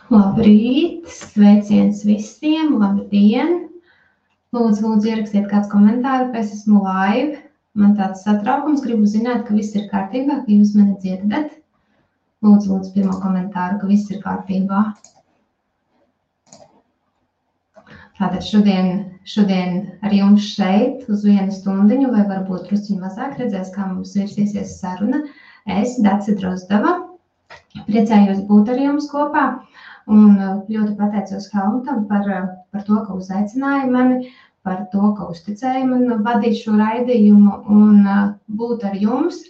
Labrīt, sveiciens visiem, labdien! Lūdzu, ierakstiet kāds komentāru, ka es esmu live. Man tāds satraukums, gribu zināt, ka viss ir kārtībā, ka jūs mani dzirdat. Lūdzu, pirmo komentāru, ka viss ir kārtībā. Tātad šodien ar jums šeit uz 1 stundiņu, vai varbūt drusciņu mazāk redzēs, kā mums virsīsies saruna. Es, Dace Drozdava, priecājos būt ar jums kopā. Un ļoti pateicos Helmutam par to, ka uzaicināja mani, par to, ka uzticēja man vadīt šo raidījumu un būt ar jums.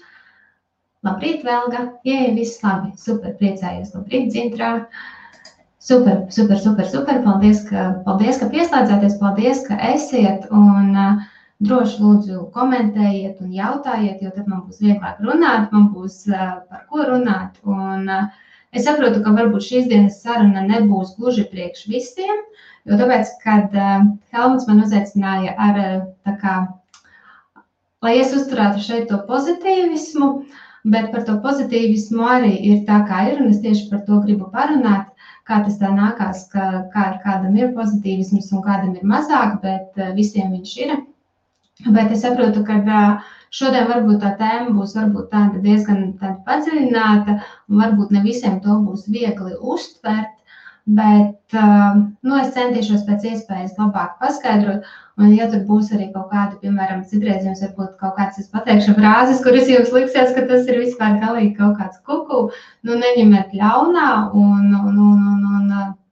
Labrīt, Velga! Jē, viss labi! Super, priecājos! Labrīt, Dzintrā! Super! Paldies, ka pieslēdzāties, paldies, ka esiet un droši lūdzu komentējiet un jautājiet, jo tad man būs vieglāk runāt, man būs par ko runāt. Un es saprotu, ka varbūt šīs dienas saruna nebūs gluži priekš visiem, jo tāpēc, kad Helmuts man uzaicināja lai es uzturētu šeit to pozitīvismu, bet par to pozitīvismu arī ir tā, kā ir, un es tieši par to gribu parunāt, kā tas tā nākās, kādam ir pozitīvisms un kādam ir mazāk, bet visiem viņš ir. Bet es saprotu, ka šodien varbūt tā tēma būs varbūt tāda diezgan padziļināta, un varbūt ne visiem to būs viegli uztvert, bet es centīšos pēc iespējas labāk paskaidrot, un ja tur būs arī kaut kāda, piemēram, citreiz jums varbūt kaut kāds, es pateikšu frāzes, kuras jums liksies, ka tas ir vispār galīgi kaut kāds kuku, neņemiet ļaunā un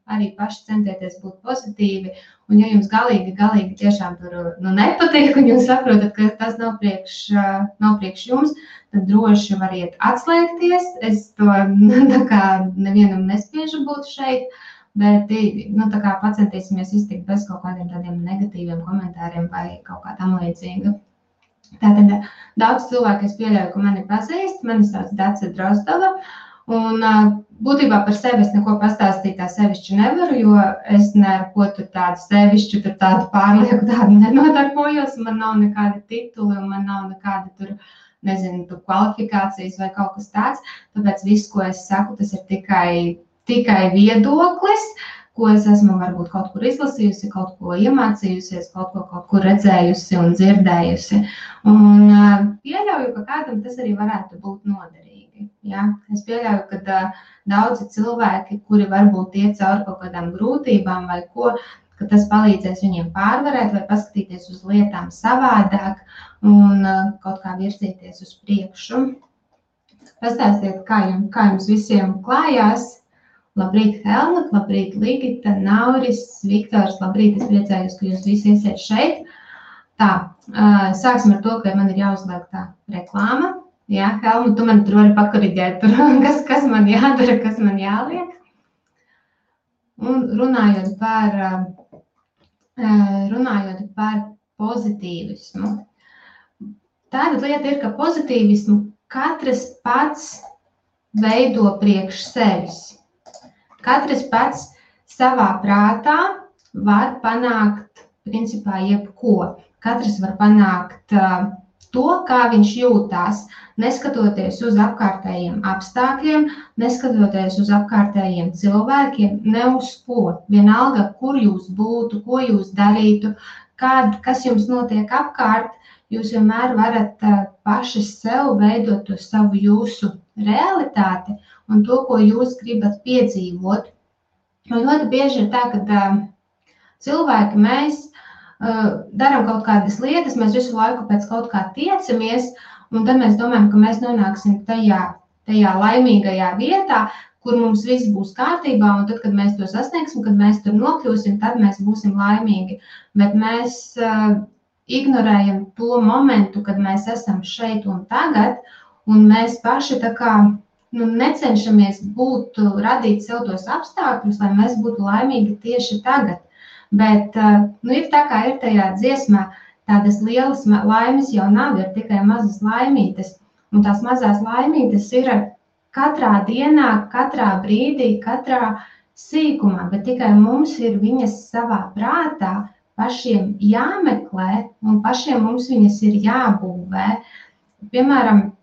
arī paši centieties būt pozitīvi, un ja jums galīgi tiešām tur nepatīk, un jūs saprotat, ka tas nav priekš jums, tad droši variet atslēgties. Es to nevienam nespiežu būt šeit, bet pacentīsimies iztikt bez kaut kādiem tādiem negatīviem komentāriem vai kaut kā tam līdzīga. Tātad daudz cilvēku es pieļauju, ka mani pazīst, mani sauc Dace Drozdava, un būtībā par sevi es neko pastāstīt tā sevišķi nevaru, jo es neko tur tādu sevišķu, tur tādu pārlieku tādu nenodarbojos, man nav nekādi tituli un man nav nekādi tur, nezinu, tur kvalifikācijas vai kaut kas tāds, tāpēc viss, ko es saku, tas ir tikai viedoklis, ko es esmu varbūt kaut kur izlasījusi, kaut ko iemācījusies, kaut kur redzējusi un dzirdējusi. Un pieļauju, ka kādam tas arī varētu būt noderīgi. Ja? Es pieļauju, ka daudzi cilvēki, kuri varbūt iet cauri kaut kādām grūtībām vai ko, ka tas palīdzēs viņiem pārvarēt vai paskatīties uz lietām savādāk un kaut kā virzīties uz priekšu. Pastāstiet, kā jums visiem klājās. Labrīt, Helmut, labrīt, Ligita, Nauris, Viktors, labrīt, es priecājos, ka jūs visi esiet šeit. Tā, sāksim ar to, ka man ir jāuzliek tā reklāma. Jā, Helmut, tu man tur vari pakoriģēt, kas man jādara, kas man jāliek. Un runājot par pozitīvismu. Tāda lieta ir, ka pozitīvismu katrs pats veido priekš sevis. Katrs pats savā prātā var panākt, principā, jebko. Katrs var panākt to, kā viņš jūtās, neskatoties uz apkārtējiem apstākļiem, neskatoties uz apkārtējiem cilvēkiem, ne uz ko. Vienalga, kur jūs būtu, ko jūs darītu, kas jums notiek apkārt, jūs vienmēr varat paši sev veidot to savu jūsu realitāti un to, ko jūs gribat piedzīvot. Un ļoti bieži ir tā, ka cilvēki mēs darām kaut kādas lietas, mēs visu laiku pēc kaut kā tiecamies, un tad mēs domājam, ka mēs nonāksim tajā laimīgajā vietā, kur mums viss būs kārtībā, un tad, kad mēs to sasniegsim, kad mēs tur nokļūsim, tad mēs būsim laimīgi. Bet mēs ignorējam to momentu, kad mēs esam šeit un tagad, un mēs paši necenšamies radīt sev tos apstākļus, lai mēs būtu laimīgi tieši tagad. Bet ir tā, kā ir tajā dziesmā, tādas lielas laimes jau nav, ir tikai mazas laimītes. Un tās mazās laimītes ir katrā dienā, katrā brīdī, katrā sīkumā, bet tikai mums ir viņas savā prātā pašiem jāmeklē un pašiem mums viņas ir jābūvē. Piemēram,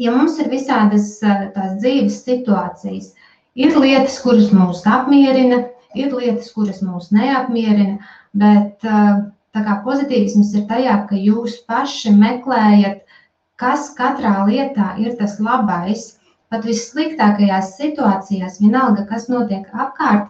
ja mums ir visādas tās dzīves situācijas, Ir lietas, kuras mūs apmierina, ir lietas, kuras mūs neapmierina, bet tā kā pozitīvisms ir tajā, ka jūs paši meklējat, kas katrā lietā ir tas labais, pat vissliktākajās situācijās, vienalga, kas notiek apkārt,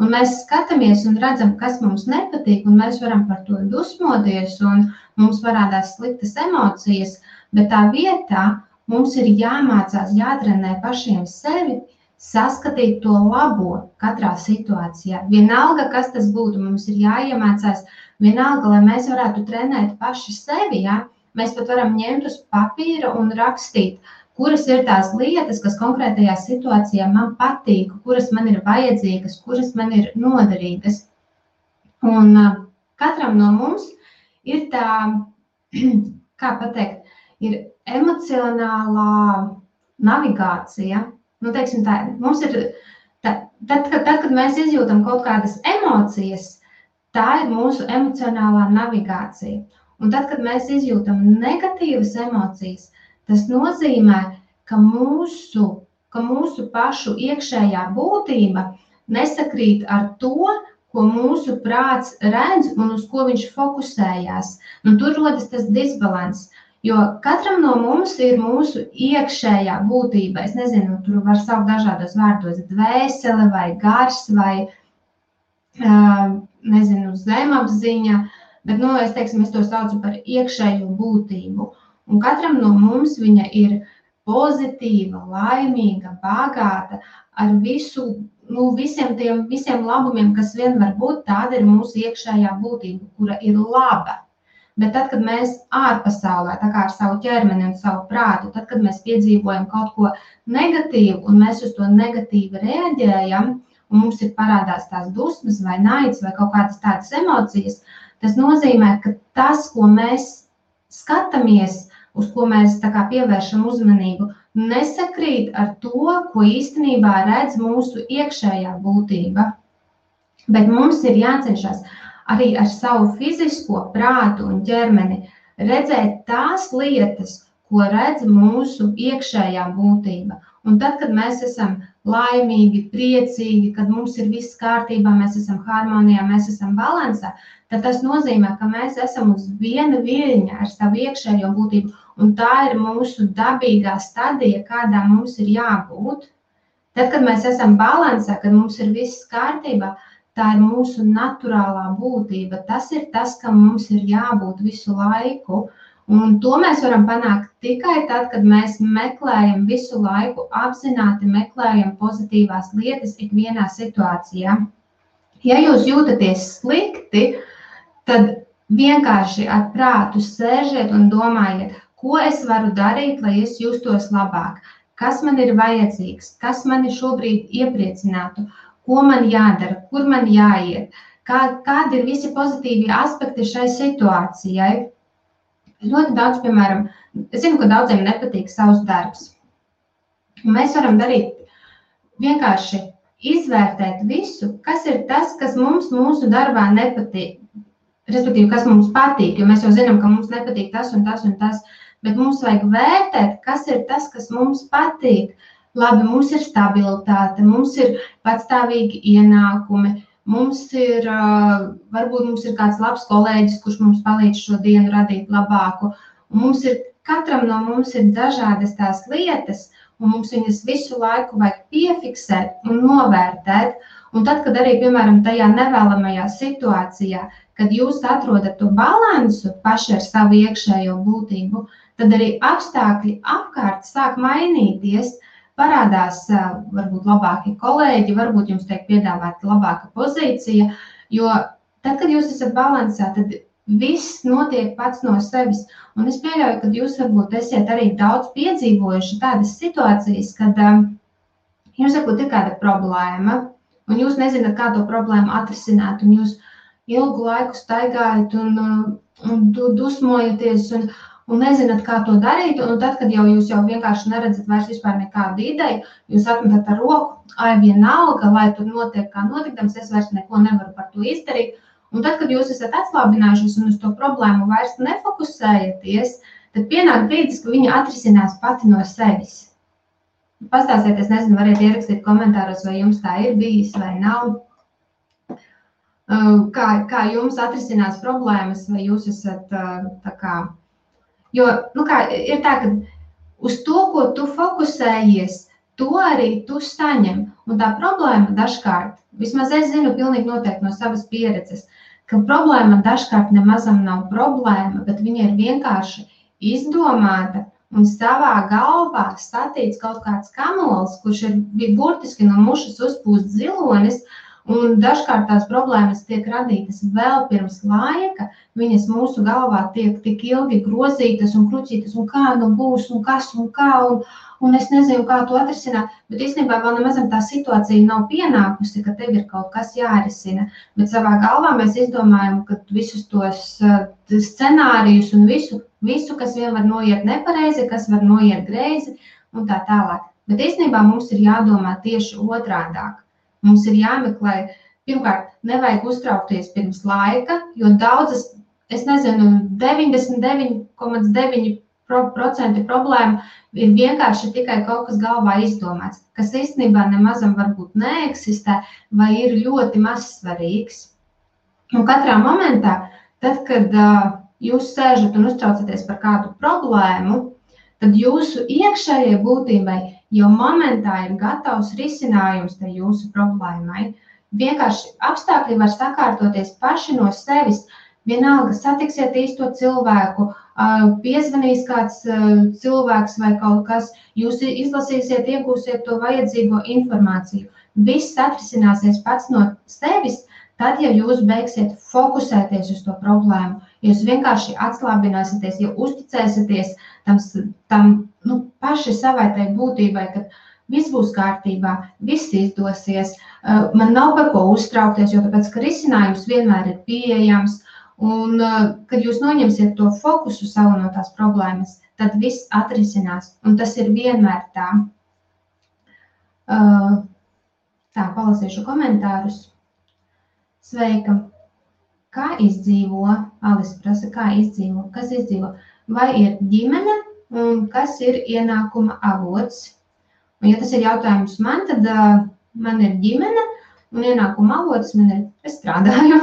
un mēs skatāmies un redzam, kas mums nepatīk, un mēs varam par to dusmoties, un mums parādās sliktas emocijas, bet tā vietā mums ir jāmācās, jātrenē pašiem sevi, saskatīt to labo katrā situācijā. Vienalga, kas tas būtu, mums ir jāiemācās, vienalga, lai mēs varētu trenēt paši sevi, ja? Mēs pat varam ņemt uz papīra un rakstīt, kuras ir tās lietas, kas konkrētajā situācijā man patīk, kuras man ir vajadzīgas, kuras man ir noderīgas. Un katram no mums ir tā, kā pateikt, ir emocionālā navigācija. Nu, teiksim tā, mums ir, tad, kad mēs izjūtam kaut kādas emocijas, tā ir mūsu emocionālā navigācija. Un tad, kad mēs izjūtam negatīvas emocijas, tas nozīmē, ka mūsu pašu iekšējā būtība nesakrīt ar to, ko mūsu prāts redz un uz ko viņš fokusējās. Un tur rodas tas disbalans. Jo katram no mums ir mūsu iekšējā būtība. Es nezinu, tur var saukt dažādos vārdos dvēsele vai gars vai, nezinu, zemapziņa, bet, es to saucu par iekšējo būtību. Un katram no mums viņa ir pozitīva, laimīga, bagāta, ar visiem labumiem, kas vien var būt, tāda ir mūsu iekšējā būtība, kura ir laba. Bet tad, kad mēs ārpasaulē, tā kā ar savu ķermeni un savu prātu, tad, kad mēs piedzīvojam kaut ko negatīvu un mēs uz to negatīvi reaģējam, un mums ir parādās tās dusmas vai naids vai kaut kādas tādas emocijas, tas nozīmē, ka tas, ko mēs skatāmies, uz ko mēs tā kā pievēršam uzmanību, nesakrīt ar to, ko īstenībā redz mūsu iekšējā būtība. Bet mums ir jācenšas arī ar savu fizisko prātu un ķermeni redzēt tās lietas, ko redz mūsu iekšējā būtība. Un tad, kad mēs esam laimīgi, priecīgi, kad mums ir viss kārtībā, mēs esam harmonijā, mēs esam balansā, tad tas nozīmē, ka mēs esam uz viena viļņa ar savu iekšējo būtību, un tā ir mūsu dabīgā stadija, kādā mums ir jābūt. Tad, kad mēs esam balansā, kad mums ir viss kārtībā, tā ir mūsu naturālā būtība. Tas ir tas, kam mums ir jābūt visu laiku. Un to mēs varam panākt tikai tad, kad mēs meklējam visu laiku, apzināti meklējam pozitīvās lietas ikvienā situācijā. Ja jūs jūtaties slikti, tad vienkārši ar prātu sēžiet un domājiet, ko es varu darīt, lai es justos labāk, kas man ir vajadzīgs, kas mani šobrīd iepriecinātu, ko man jādara, kur man jāiet, kādi ir visi pozitīvie aspekti šai situācijai. Ļoti daudz, piemēram, es zinu, ka daudziem nepatīk savs darbs. Mēs varam darīt vienkārši izvērtēt visu, kas ir tas, kas mums mūsu darbā nepatīk. Respektīvi, kas mums patīk, jo mēs jau zinām, ka mums nepatīk tas un tas un tas, bet mums vajag vērtēt, kas ir tas, kas mums patīk. Labi, mums ir stabilitāte, mums ir patstāvīgi ienākumi, varbūt mums ir kāds labs kolēģis, kurš mums palīdz šo dienu radīt labāku. Un katram no mums ir dažādas tās lietas, un mums viņas visu laiku vajag piefiksēt un novērtēt. Un tad, kad arī, piemēram, tajā nevēlamajā situācijā, kad jūs atrodat to balansu paši ar savu iekšējo būtību, tad arī apstākļi apkārt sāk mainīties. Parādās varbūt labāki kolēģi, varbūt jums tiek piedāvāta labāka pozīcija, jo tad, kad jūs esat balansā, tad viss notiek pats no sevis. Un es pieļauju, ka jūs varbūt esiet arī daudz piedzīvojuši tādas situācijas, kad jums varbūt ir kāda problēma, un jūs nezināt, kā to problēmu atrisināt, un jūs ilgu laiku staigājat un dusmojaties, un nezināt, kā to darīt, un tad, kad jūs jau vienkārši neredzat vairs vispār nekādu ideju, jūs atmetat ar roku, vienalga, lai tur notiek kā notikdams, es vairs neko nevaru par to izdarīt. Un tad, kad jūs esat atslābinājušies un uz to problēmu vairs nefokusējaties, tad pienāk brīdis, ka viņa atrisinās pati no sevis. Pastāstieties, nezinu, variet ierakstīt komentāros, vai jums tā ir bijis vai nav. Kā jums atrisinās problēmas, vai jūs esat tā kā... Jo, ir tā, ka uz to, ko tu fokusējies, to arī tu saņem. Un tā problēma dažkārt, vismaz es zinu pilnīgi noteikti no savas pieredzes, ka problēma dažkārt nemazam nav problēma, bet viņa ir vienkārši izdomāta un savā galvā statīts kaut kāds kamols, kurš ir burtiski no mušas uzpūst zilonis, un dažkārt tās problēmas tiek radītas vēl pirms laika, viņas mūsu galvā tiek tik ilgi grozītas un kruķītas, un kā nu būs, un kas, un kā, un es nezinu, kā to atrisināt, bet īstenībā vēl nemazam tā situācija nav pienākusi, ka tev ir kaut kas jārisina, bet savā galvā mēs izdomājam, ka visus tos scenārijus un visu, kas vien var noiet nepareizi, kas var noiet greizi, un tā tālāk. Bet īstenībā mums ir jādomā tieši otrādāk. Mums ir jāmeklē, pirmkārt, nevajag uztraukties pirms laika, jo daudzas, es nezinu, 99,9% problēma ir vienkārši tikai kaut kas galvā izdomāts, kas īstenībā nemazam varbūt neeksistē vai ir ļoti mazsvarīgs. Un katrā momentā, tad, kad jūs sēžat un uztraucaties par kādu problēmu, tad jūsu iekšējai būtībai jau momentā ir gatavs risinājums tai jūsu problēmai. Vienkārši apstākļi var sakārtoties paši no sevis. Vienalga satiksiet īsto cilvēku, piezvanīs kāds cilvēks vai kaut kas, jūs izlasīsiet, iegūsiet to vajadzīgo informāciju. Viss atrisināsies pats no sevis, tad, ja jūs beigsiet fokusēties uz to problēmu, jūs vienkārši atslābināsieties, ja uzticēsieties tam paši savai tai būtībai, ka viss būs kārtībā, viss izdosies, man nav par ko uztraukties, jo tāpēc, ka risinājums vienmēr ir pieejams, un kad jūs noņemsiet to fokusu savu no tās problēmas, tad viss atrisinās, un tas ir vienmēr tā. Tā, palasīšu komentārus. Sveika! Kā izdzīvo? Alis prasa, kā izdzīvo? Kas izdzīvo? Vai ir ģimene un kas ir ienākuma avots? Un, ja tas ir jautājums man, tad man ir ģimene un ienākuma avots man ir, es strādāju.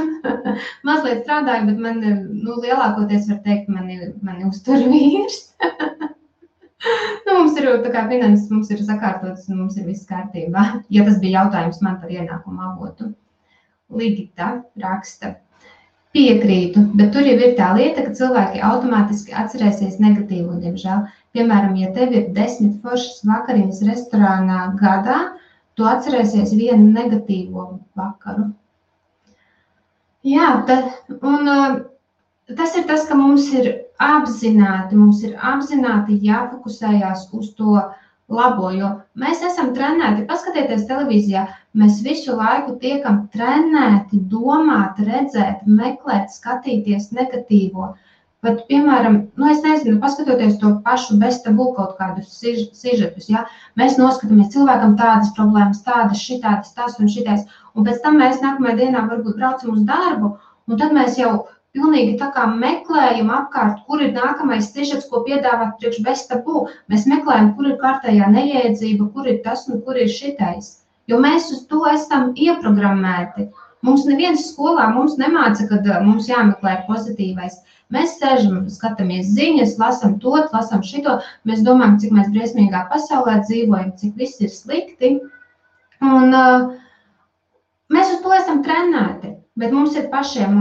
Mazliet strādāju, bet man, lielākoties var teikt, mani uztur vīrs. Mums ir tā kā finanses, mums ir sakārtotas un mums ir viss kārtībā. Ja tas bija jautājums man par ienākuma avotu. Ligita raksta. Piekrītu, bet tur jau ir tā lieta, ka cilvēki automātiski atcerēsies negatīvu, diemžēl. Piemēram, ja tev ir 10 foršas vakariņas restorānā gadā, tu atcerēsies vienu negatīvo vakaru. Jā, tas ir tas, ka mums ir apzināti jāfokusējās uz to labo, jo mēs esam trenēti, paskatieties televīzijā, mēs visu laiku tiekam trenēti domāt, redzēt, meklēt, skatīties negatīvo. Bet, piemēram, es nezinu, paskatoties to pašu bez tabū kaut kādus sižetus, ja? Mēs noskatāmies cilvēkam tādas problēmas, tādas, šitādas, tas un šitais, un pēc tam mēs nākamajā dienā varbūt braucam uz darbu, un tad mēs jau pilnīgi tā kā meklējam apkārt, kur ir nākamais sižets, ko piedāvāt priekš bez tabū. Mēs meklējam, kur ir kārtējā neiedzība, kur ir tas un kur ir šitais. Jo mēs uz to esam ieprogrammēti. Mums neviens skolā mums nemāca, kad mums jāmeklē pozitīvais. Mēs sēžam, skatāmies ziņas, lasam to, lasam šito. Mēs domājam, cik mēs briesmīgā pasaulē dzīvojam, cik viss ir slikti. Un mēs uz to esam trenēti. Bet mums ir pašiem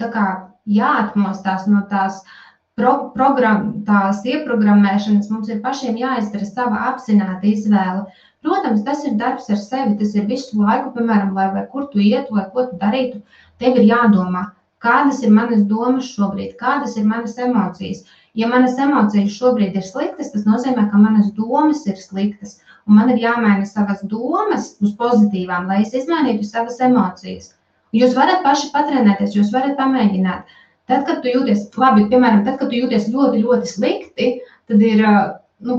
tā kā jāatmostās no tās ieprogrammēšanas, mums ir pašiem jāizdara sava apzināta izvēle. Protams, tas ir darbs ar sevi, tas ir visu laiku, piemēram, vai kur tu ietu, vai ko tu darītu, tev ir jādomā, kādas ir manas domas šobrīd, kādas ir manas emocijas. Ja manas emocijas šobrīd ir sliktas, tas nozīmē, ka manas domas ir sliktas, un man ir jāmaina savas domas uz pozitīvām, lai es izmainītu savas emocijas. Jūs varat paši patrenēties, jūs varat pamēģināt. Tad, kad tu jūties, piemēram, tad, kad tu jūties ļoti, ļoti slikti, tad ir,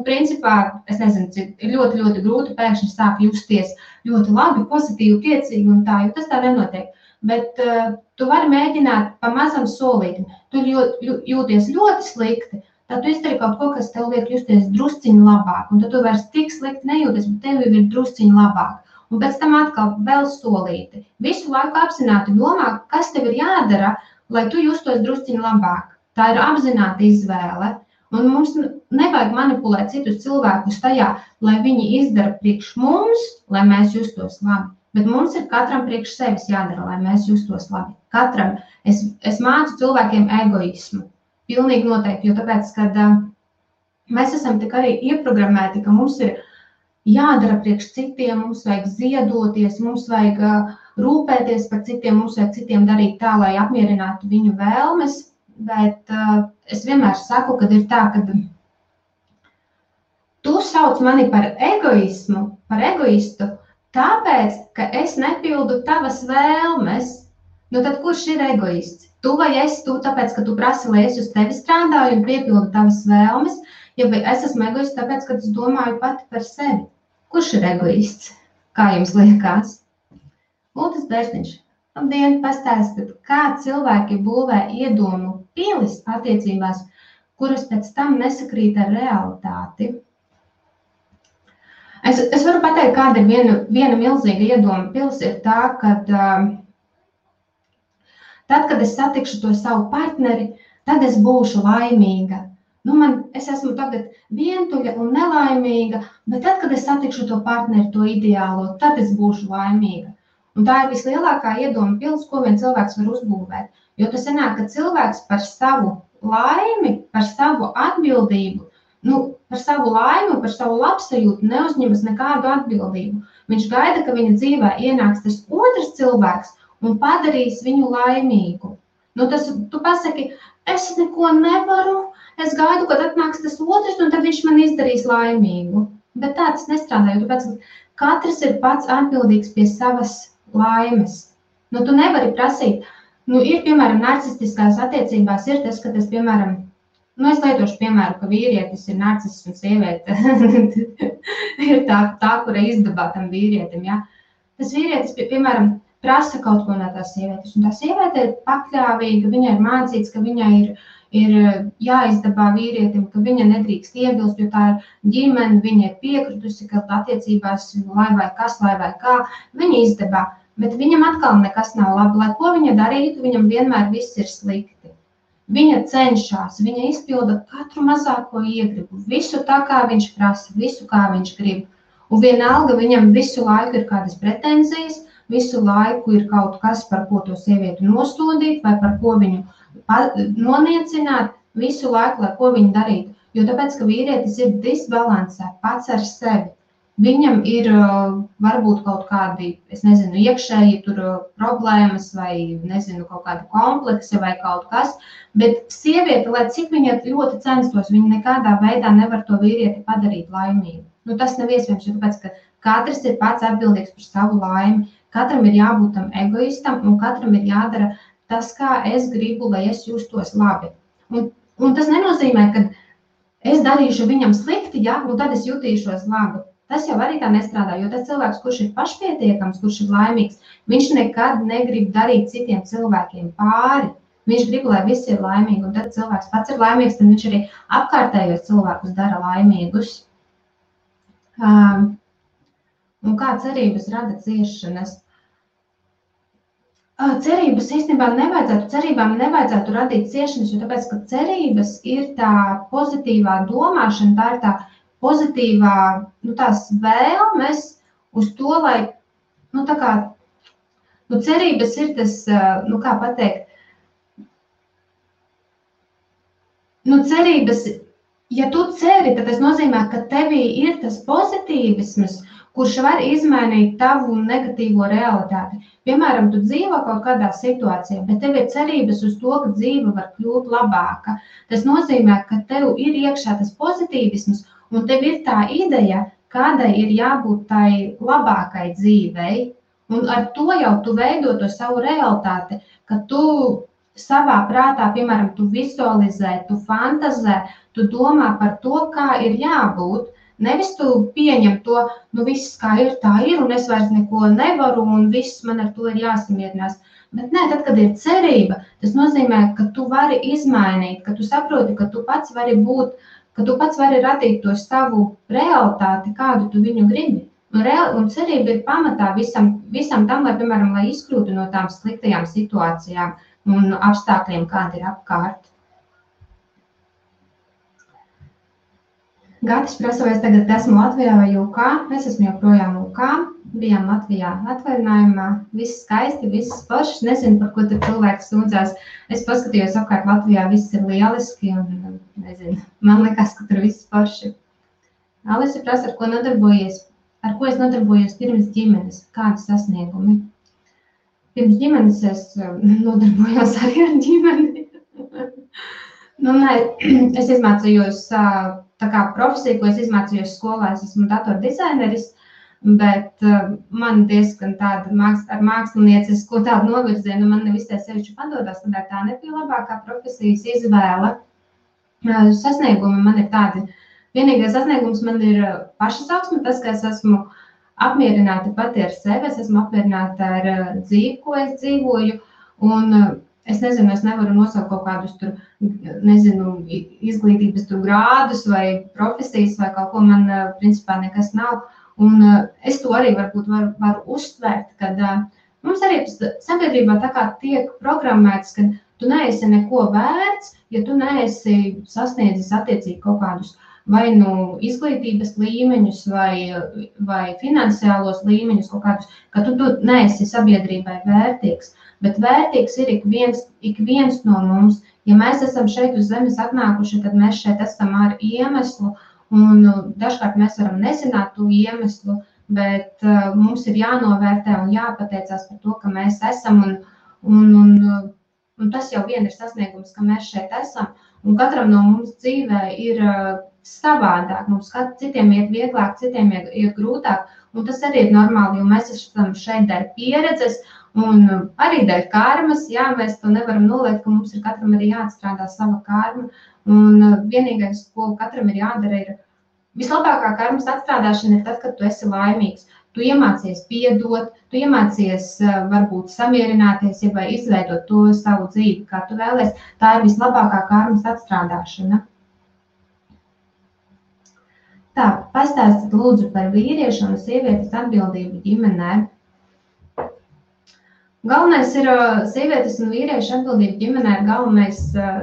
principā, es nezinu, ir ļoti, ļoti grūti pēkšņi sāk justies ļoti labi, pozitīvi, priecīgi un tā, jo tas tā nenotiek. Bet tu vari mēģināt pa mazam solītim. Tu jūties ļoti slikti, tad tu izdari kaut ko, kas tev liek justies drusciņi labāk, un tad tu vairs tik slikti nejūties, bet tev ir drusciņi labāk. Un pēc tam atkal vēl solīti. Visu laiku apzināti domā, kas tev ir jādara, lai tu justos drusciņi labāk. Tā ir apzināta izvēle. Un mums nevajag manipulēt citus cilvēkus tajā, lai viņi izdara priekš mums, lai mēs justos labi. Bet mums ir katram priekš sevis jādara, lai mēs justos labi. Katram. Es mācu cilvēkiem egoismu. Pilnīgi noteikti, jo tāpēc, kad mēs esam tik arī ieprogrammēti, ka mums ir jādara priekš citiem, mums vajag ziedoties, mums vajag rūpēties par citiem, mums vajag citiem darīt tā, lai apmierinātu viņu vēlmes, bet es vienmēr saku, kad ir tā, ka tu sauc mani par egoismu, par egoistu, tāpēc, ka es nepildu tavas vēlmes, nu tad kurš ir egoists? Tu vai es, tu tāpēc, ka tu prasi, lai es uz tevi strādāju un piepildu tavas vēlmes, ja vai es esmu egoists tāpēc, ka es domāju pati par sevi. Kurš ir egoists? Kā jums liekas? Ultis Bērziņš, labdien, pastāstiet, kā cilvēki būvē iedomu pilis attiecībās, kuras pēc tam nesakrīt ar realitāti. Es varu pateikt, kāda ir viena milzīga iedoma pils, ir tā, kad tad, kad es satikšu to savu partneri, tad es būšu laimīga. Es esmu tagad vientuļa un nelaimīga, bet tad, kad es satikšu to partneri, to ideālo, tad es būšu laimīga. Un tā ir vislielākā iedoma pils, ko vien cilvēks var uzbūvēt. Jo tas sanāk, ka cilvēks par savu laimi, par savu atbildību, par savu laimi un par savu labsajūtu neuzņemas nekādu atbildību. Viņš gaida, ka viņa dzīvē ienāks tas otrs cilvēks un padarīs viņu laimīgu. Tu pasaki, es neko nevaru, es gaidu, kad atnāks tas otrs, un tad viņš man izdarīs laimīgu. Bet tā tas nestrādā, jo tāpēc katrs ir pats atbildīgs pie savas laimes. Tu nevari prasīt, ir, piemēram, narcistiskās attiecībās ir tas, ka tas, piemēram, es lietošu piemēru, ka vīrietis ir narcists un sieviete ir tā, kura izdabā tam vīrietim, ja? Tas vīrietis, piemēram, prasa kaut ko no tās sievietes, un tā sieviete ir pakļāvīga, viņai ir mācīts, ka viņai ir jāizdabā vīrietim, ka viņa nedrīkst iebilst, jo tā ir ģimene, viņa ir piekritusi, ka attiecībās lai vai kā, viņa izdabā, bet viņam atkal nekas nav labi, lai ko viņa darītu, viņam vienmēr viss ir slikti. Viņa cenšas, viņa izpilda katru mazāko iegribu, visu tā, kā viņš prasa, visu, kā viņš grib. Un vienalga viņam visu laiku ir kādas pretenzijas, visu laiku ir kaut kas, par ko to sievieti nosodīt, vai par ko viņu noniecināt, visu laiku, lai ko viņa darītu. Jo tāpēc, ka vīrietis ir disbalansē pats ar sevi. Viņam ir varbūt kaut kādi, iekšēji tur problēmas vai, kaut kādi kompleksi vai kaut kas, bet sieviete, lai cik viņa ļoti censtos, viņa nekādā veidā nevar to vīrieti padarīt laimīgu. Tas nav iespējams, jo tāpēc, ka katrs ir pats atbildīgs par savu laimi, katram ir jābūt tam egoistam un katram ir jādara tas, kā es gribu, lai es justos labi. Un tas nenozīmē, ka es darīšu viņam slikti, ja, un tad es jutīšos labi. Tas jau arī tā nestrādā, jo tas cilvēks, kurš ir pašpietiekams, kurš ir laimīgs, viņš nekad negrib darīt citiem cilvēkiem pāri. Viņš grib, lai visi ir laimīgi, un tad cilvēks pats ir laimīgs, tad viņš arī apkārtējos cilvēkus dara laimīgus. Un kā cerības rada ciešanas? Cerībām nevajadzētu radīt ciešanas, jo tāpēc, ka cerības ir tā pozitīvā domāšana, tā ir tā pozitīvā, tās vēlmes uz to, lai, cerības ir tas, kā pateikt, cerības, ja tu ceri, tad tas nozīmē, ka tevī ir tas pozitīvisms, kurš var izmainīt tavu negatīvo realitāti. Piemēram, tu dzīvo kaut kādā situācijā, bet tev ir cerības uz to, ka dzīve var kļūt labāka. Tas nozīmē, ka tev ir iekšā tas pozitīvisms, un tev ir tā ideja, kādai ir jābūt tai labākai dzīvei, un ar to jau tu veido to savu realitāti, ka tu savā prātā, piemēram, tu vizualizē, tu fantazē, tu domā par to, kā ir jābūt. Nevis tu pieņem to, viss kā ir, tā ir, un es vairs neko nevaru, un viss man ar to ir jāsamierinās. Bet nē, tad, kad ir cerība, tas nozīmē, ka tu vari izmainīt, ka tu saproti, ka tu pats vari būt, ka tu pats vari radīt to savu realitāti, kādu tu viņu gribi. Un cerība ir pamatā visam tam, lai, piemēram, lai izkļūtu no tām sliktajām situācijām un apstākļiem, kādi ir apkārt. Gatis prasa, vai es tagad esmu Latvijā vai UK. Es esmu joprojām UK. Bijām Latvijā atvaļinājumā. Viss skaisti, viss foršs. Nezinu, par ko tur cilvēks sūdzās. Es paskatījos apkārt Latvijā, viss ir lieliski un nezinu. Man liekas, ka tur viss forši. Alisa prasa, ar ko nodarbojies. Ar ko es nodarbojos pirms ģimenes? Kādi sasniegumi? Pirms ģimenes es nodarbojos arī ar ģimeni. Es izmācījos tā kā profesija, ko es izmācījos skolā, es esmu datordizaineris, bet man diezgan tāda ar māksliniecisko tādu novirzienu, man nevis tā sevišķi padodas, tā nebija labākā profesijas izvēle. Sasniegumi man ir tādi. Vienīgais sasniegums man ir pašizaugsme, tas, ka es esmu apmierināta pati ar sevi, es esmu apmierināta ar dzīvi, ko es dzīvoju, un es nezinu, es nevaru nosaukt kaut kādus tur, nezinu, izglītības tur grādus vai profesijas vai kaut ko, man principā nekas nav. Un es to arī varbūt varu uztvērt, kad mums arī sabiedrībā tā kā tiek programmēts, ka tu neesi neko vērts, ja tu neesi sasniedzis attiecīgi kaut kādus vai nu izglītības līmeņus vai finansiālos līmeņus kaut kādus, ka tu neesi sabiedrībai vērtīgs. Bet vērtīgs ir ik viens no mums. Ja mēs esam šeit uz zemes atnākuši, tad mēs šeit esam ar iemeslu, un dažkārt mēs varam nezināt to iemeslu, bet mums ir jānovērtē un jāpateicās par to, ka mēs esam, un tas jau vien ir sasniegums, ka mēs šeit esam, un katram no mums dzīvē ir savādāk. Mums citiem iet vieglāk, citiem iet grūtāk, un tas arī ir normāli, jo mēs esam šeit dēļ pieredzes, un arī dēļ karmas, jā, mēs to nevaram noliekt, ka mums ir katram arī jāatstrādā sava karma, un vienīgais, ko katram ir jādara, ir vislabākā karmas atstrādāšana ir tad, kad tu esi laimīgs. Tu iemācies piedot, tu iemācies varbūt samierināties, vai izveidot to savu dzīvi, kā tu vēlies. Tā ir vislabākā karmas atstrādāšana. Tā, pastāstiet lūdzu par vīriešu un sievietes atbildību ģimenē. Galvenais ir sievietes un vīriešu atbildība ģimenē ir galvenais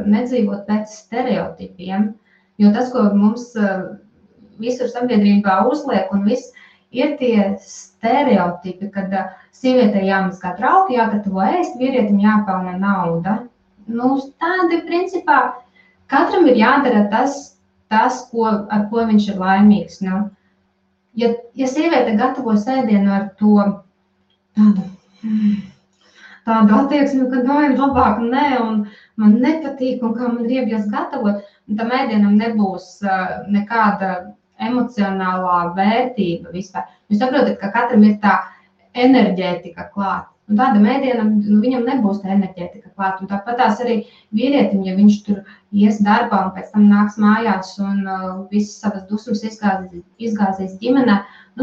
nedzīvot pēc stereotipiem, jo tas, ko mums visur sabiedrībā uzliek un viss, ir tie stereotipi, kad sievietei jāmazgā trauki, jāgatavo ēst, vīrietim jāpelna nauda. Tādi principā katram ir jādara tas ar ko viņš ir laimīgs. Ja sieviete gatavo sēdienu ar to tādu attieksmi, ka ir labāk nē, un man nepatīk, un kā man riebjas gatavot, un tam ēdienam nebūs nekāda emocionālā vērtība vispār. Jūs saprotat, ka katram ir tā enerģētika klāt, un tādam ēdienam viņam nebūs tā enerģētika klāt, un tāpatās arī vīrietim, ja viņš tur ies darbā un pēc tam nāks mājās un visas savas dusmas izgāzīs ģimenē,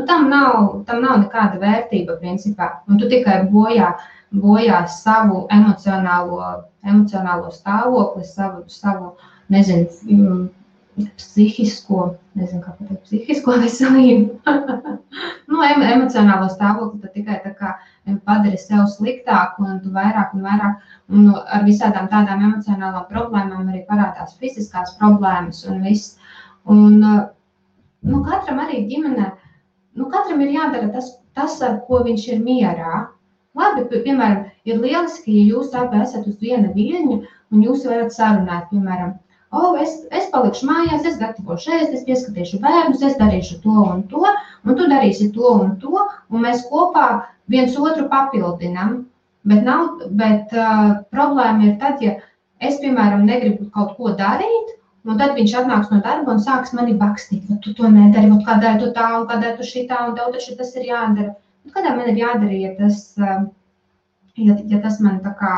tam nav nekāda vērtība principā, un tu tikai bojā savu emocionālo stāvokli, savu nezinu, psihisko veselību. Emocionālo stāvokli tu tikai tā kā padari sev sliktāku, un tu vairāk, un ar visādām tādām emocionālām problēmām arī parādās fiziskās problēmas un viss. Un katram arī ģimenē, katram ir jādara tas, ar ko viņš ir mierā. Labi, piemēram, ir lieliski, ja jūs abi esat uz viena viļņa, un jūs varat sarunāt, piemēram, es palikšu mājās, es gatavošu ēst, es pieskatīšu bērnus, es darīšu to, un tu darīsi to un to, un mēs kopā viens otru papildinam. Bet problēma ir tad, ja es, piemēram, negribu kaut ko darīt, un tad viņš atnāks no darba un sāks mani bakstīt, tu to nedari, kādēļ tu tā, un kādēļ tu šitā, un tev taču tas ir jādara. Kādā man ir jādara, ja tas man tā kā,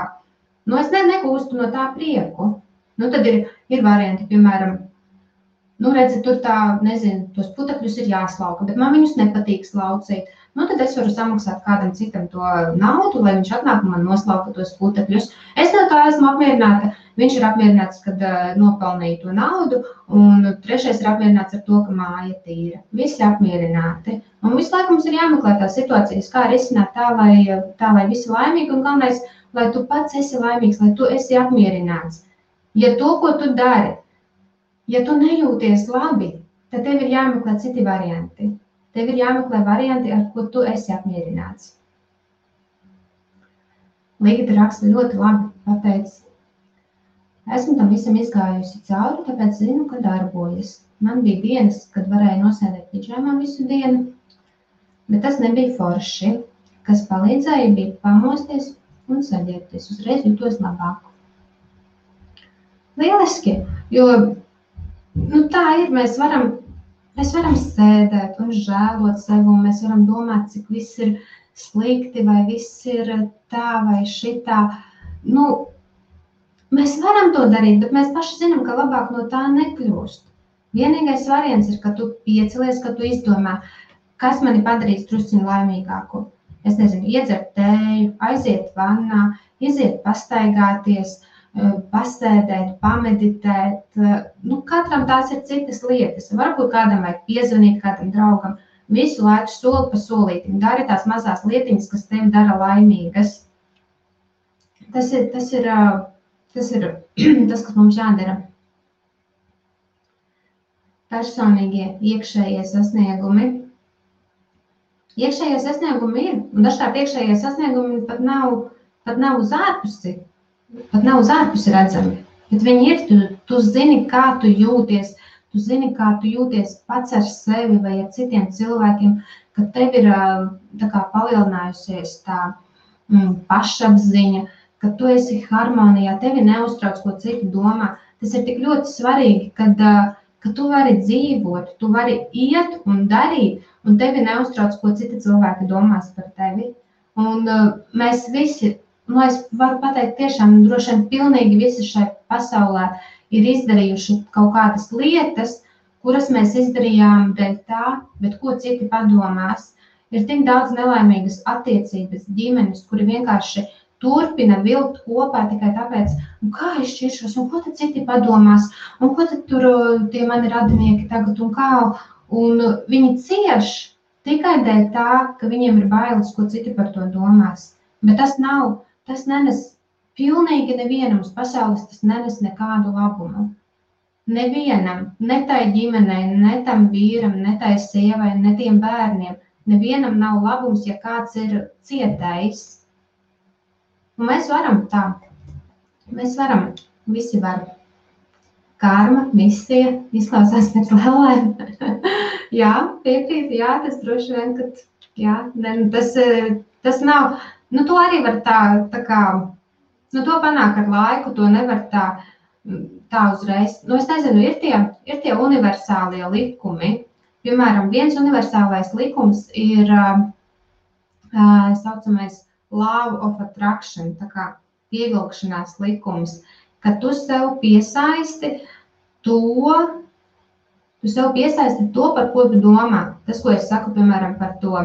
es negūstu no tā prieku. Tad ir varianti, piemēram, redzi, tur tā, nezinu, tos putekļus ir jāslauka, bet man viņus nepatīk slaucīt. nu tad es varu samaksāt kādam citam to naudu, lai viņš atnāk un man noslauka tos putekļus. Es no tā esmu apmierināta, viņš ir apmierināts, kad nopelnīja to naudu, un trešais ir apmierināts ar to, ka māja tīra. Visi apmierināti. Un visu laiku mums ir jāmeklē tās situācijas, kā risināt tā, lai visi laimīgi, un galvenais, lai tu pats esi laimīgs, lai tu esi apmierināts. Ja to, ko tu dari, ja tu nejūties labi, tad tev ir jāmeklē citi varianti. Tev ir jāmeklē varianti, ar ko tu esi apmierināts. Līgita raksta ļoti labi pateicis. Esmu tam visam izgājusi cauri, tāpēc zinu, ka darbojas. Man bija dienas, kad varēja nosēdēt pidžamā visu dienu, bet tas nebija forši. Kas palīdzēja, bija pamosties un saģērbties. Uzreiz jūtos labāk. Lieliski, jo tā ir, mēs varam sēdēt un žēlot sevi, un mēs varam domāt, cik viss ir slikti, vai viss ir tā vai šitā. Mēs varam to darīt, bet mēs paši zinām, ka labāk no tā nekļūst. Vienīgais variants ir, ka tu piecelies, ka tu izdomā, kas mani padarīs drusciņu laimīgāku. Es nezinu, iedzert tēju, aiziet vannā, iziet pastaigāties, pasēdēt, pameditēt. Katram tās ir citas lietas. Varbūt kādam vajag piezvanīt, kādam draugam. Visu laiku soli pa solītim. Dari tās mazās lietiņas, kas tevi dara laimīgas. Tas ir tas, kas mums jādara. Personīgie iekšējie sasniegumi. Iekšējie sasniegumi ir, un dažkārt iekšējie sasniegumi pat nav uz ārpusi redzami. Bet viņi ir, tu zini, kā tu jūties, pats ar sevi vai ar citiem cilvēkiem, ka tev ir tā kā palielinājusies tā pašapziņa, ka tu esi harmonijā, tevi neuztrauc, ko citi domā. Tas ir tik ļoti svarīgi, ka tu vari dzīvot, tu vari iet un darīt, un tevi neuztrauc, ko citi cilvēki domās par tevi. Un mēs visi, es varu pateikt tiešām, droši vien pilnīgi visi šai pasaulē ir izdarījuši kaut kādas lietas, kuras mēs izdarījām dēļ tā, bet ko citi padomās. Ir tik daudz nelaimīgas attiecības, ģimenes, kuri vienkārši turpina vilkt kopā tikai tāpēc, kā es šķiršos, un ko tad citi padomās, un ko tad tur tie mani radinieki tagad, un kā, un viņi cieš tikai dēļ tā, ka viņiem ir bailes, ko citi par to domās. Bet tas nenes pilnīgi nevienam uz pasaules, tas nenes nekādu labumu. Nevienam, ne tai ģimenei, ne tam vīram, ne tai sievai, ne tiem bērniem, nevienam nav labums, ja kāds ir cietējis. Un mēs varam tā. Mēs varam, visi var. Karma, misija, izklausās pēc lēlēm. Jā, piekrīt, jā, tas droši vien, ka tas nav, to arī var tā kā, to panāk ar laiku, to nevar tā uzreiz. Es nezinu, ir tie universālie likumi. Piemēram, viens universālais likums ir saucamais Law of Attraction, tā kā pievilkšanās likums, ka tu sev piesaisti to, par ko tu domā. Tas, ko es saku, piemēram, par to,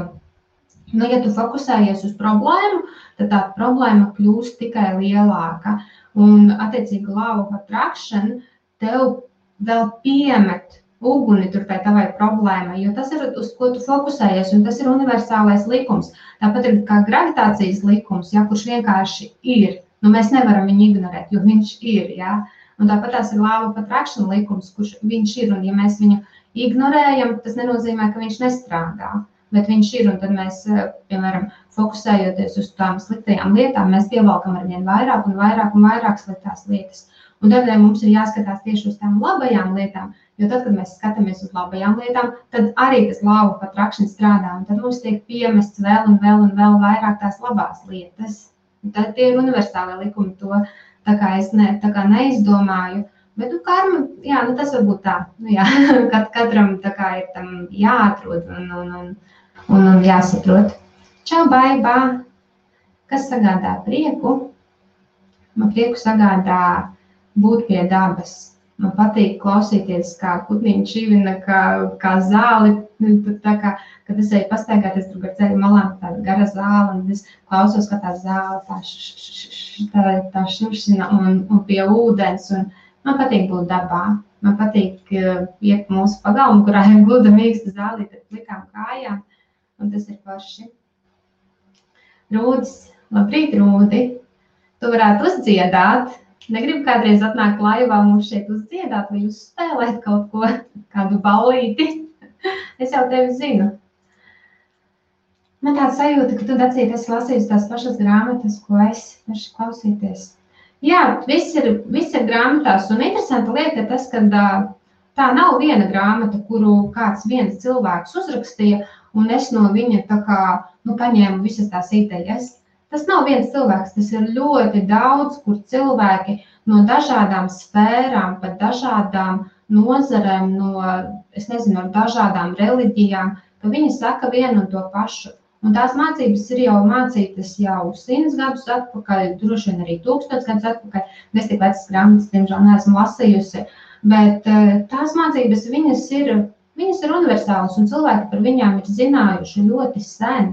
ja tu fokusējies uz problēmu, tad tā problēma kļūst tikai lielāka. Un, attiecīgi, Law of Attraction tev vēl piemet uguni tur tai tavai problēmai, jo tas ir, uz ko tu fokusējies, un tas ir universālais likums. Tāpat ir kā gravitācijas likums, kurš vienkārši ir. Mēs nevaram viņu ignorēt, jo viņš ir, Un tāpat tās ir Law of Attraction likums, kurš viņš ir, un ja mēs viņu ignorējam, tas nenozīmē, ka viņš nestrādā, bet viņš ir, un tad mēs, piemēram, fokusējoties uz tām sliktajām lietām, mēs pievalkam arvien vairāk un vairāk un vairāk sliktās lietas. Un tādēļ mums ir jāskatās tieši uz tām labajām lietām, jo tad, kad mēs skatāmies uz labajām lietām, tad arī tas Law of Attraction strādā, un tad mums tiek piemests vēl un vēl un vēl vairāk tās labās lietas. Un tad tie ir universālie likumi, to tā kā es neizdomāju, bet karma, tas varbūt tā, katram tā kā ir tam jāatrod un jāsaprot. Čau, baibā! Kas sagādā prieku? Man prieku sagādā būt pie dabas. Man patīk klausīties, kā putniņi čivina, kā zāli Tā kā, kad es eju pastaigāties tur gar ceļu malām, tāda gara zāle, un es klausos, ka tā zāle tā šušina un pie ūdens, un man patīk būt dabā. Man patīk iet mūsu pagalmu, kurā ir gluda mīksta zālīte ar plikām kājām, un tas ir forši. Rūdis, labrīt, Rūdi! Tu varētu uzdziedāt. Negribu kādreiz atnākt laivā mums šeit uzdziedāt vai uzspēlēt kaut ko, kādu ballīti. Es jau tevi zinu. Man tāda sajūta, ka tu, Dacīt, esi lasījusi tās pašas grāmatas, ko es paši klausīties. Jā, viss ir grāmatās, un interesanta lieta ir tas, ka tā nav viena grāmata, kuru kāds viens cilvēks uzrakstīja, un es no viņa tā kā, paņēmu visas tās idejas. Tas nav viens cilvēks, tas ir ļoti daudz, kur cilvēki no dažādām sfērām, pat dažādām nozarēm, no dažādām reliģijām, ka viņi saka vienu un to pašu. Un tās mācības ir jau mācītas jau 100 gadus atpakaļ, droši vien arī 1000 gadus atpakaļ. Es tik vecas grāmatas, diemžēl, neesmu lasījusi, bet tās mācības, viņas ir universālas, un cilvēki par viņām ir zinājuši ļoti sen.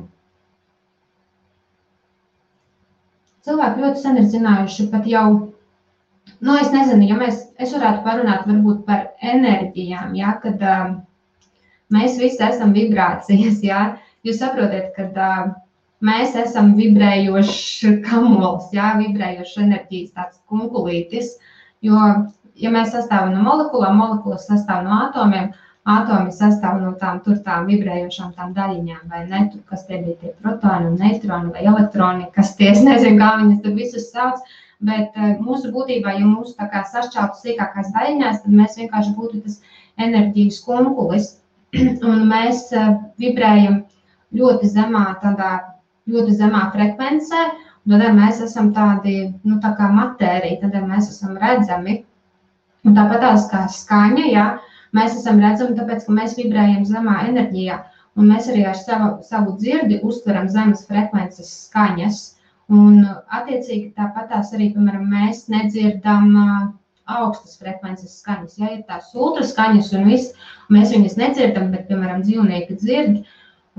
Cilvēki ļoti sen ir zinājuši pat jau, es nezinu, ja es varētu parunāt varbūt par enerģijām, ja, kad mēs visi esam vibrācijas, ja. Jūs saprotat, ka mēs esam vibrējošs kamols, jā, vibrējošs enerģijas tāds kunkulītis, jo, ja mēs sastāvam no molekulām, molekulas sastāv no atomiem, atomi sastāv no tām vibrējošām tām daļiņām, vai ne, tur, kas tie bija tie protoni un neitroni vai elektroni, kas tie, es nezinu, kā viņas tur visus sauc, bet mūsu būtībā, ja mūsu tā kā sašķeltu sīkākās daļiņās, tad mēs vienkārši būtu tas enerģijas kunkulis, un mēs vibrējam ļoti zemā frekvencē, un tādēļ mēs esam tādi, tā kā matērija, tādēļ mēs esam redzami. Un tāpat tās kā skaņa, jā, mēs esam redzami, tāpēc, ka mēs vibrējam zemā enerģijā, un mēs arī ar savu dzirdi uztveram zemes frekvences skaņas, un attiecīgi tāpat tās arī, piemēram, mēs nedzirdam augstas frekvences skaņas, ja ir tās ultraskaņas un viss, mēs viņas nedzirdam, bet, piemēram, dzīvnieki dzird.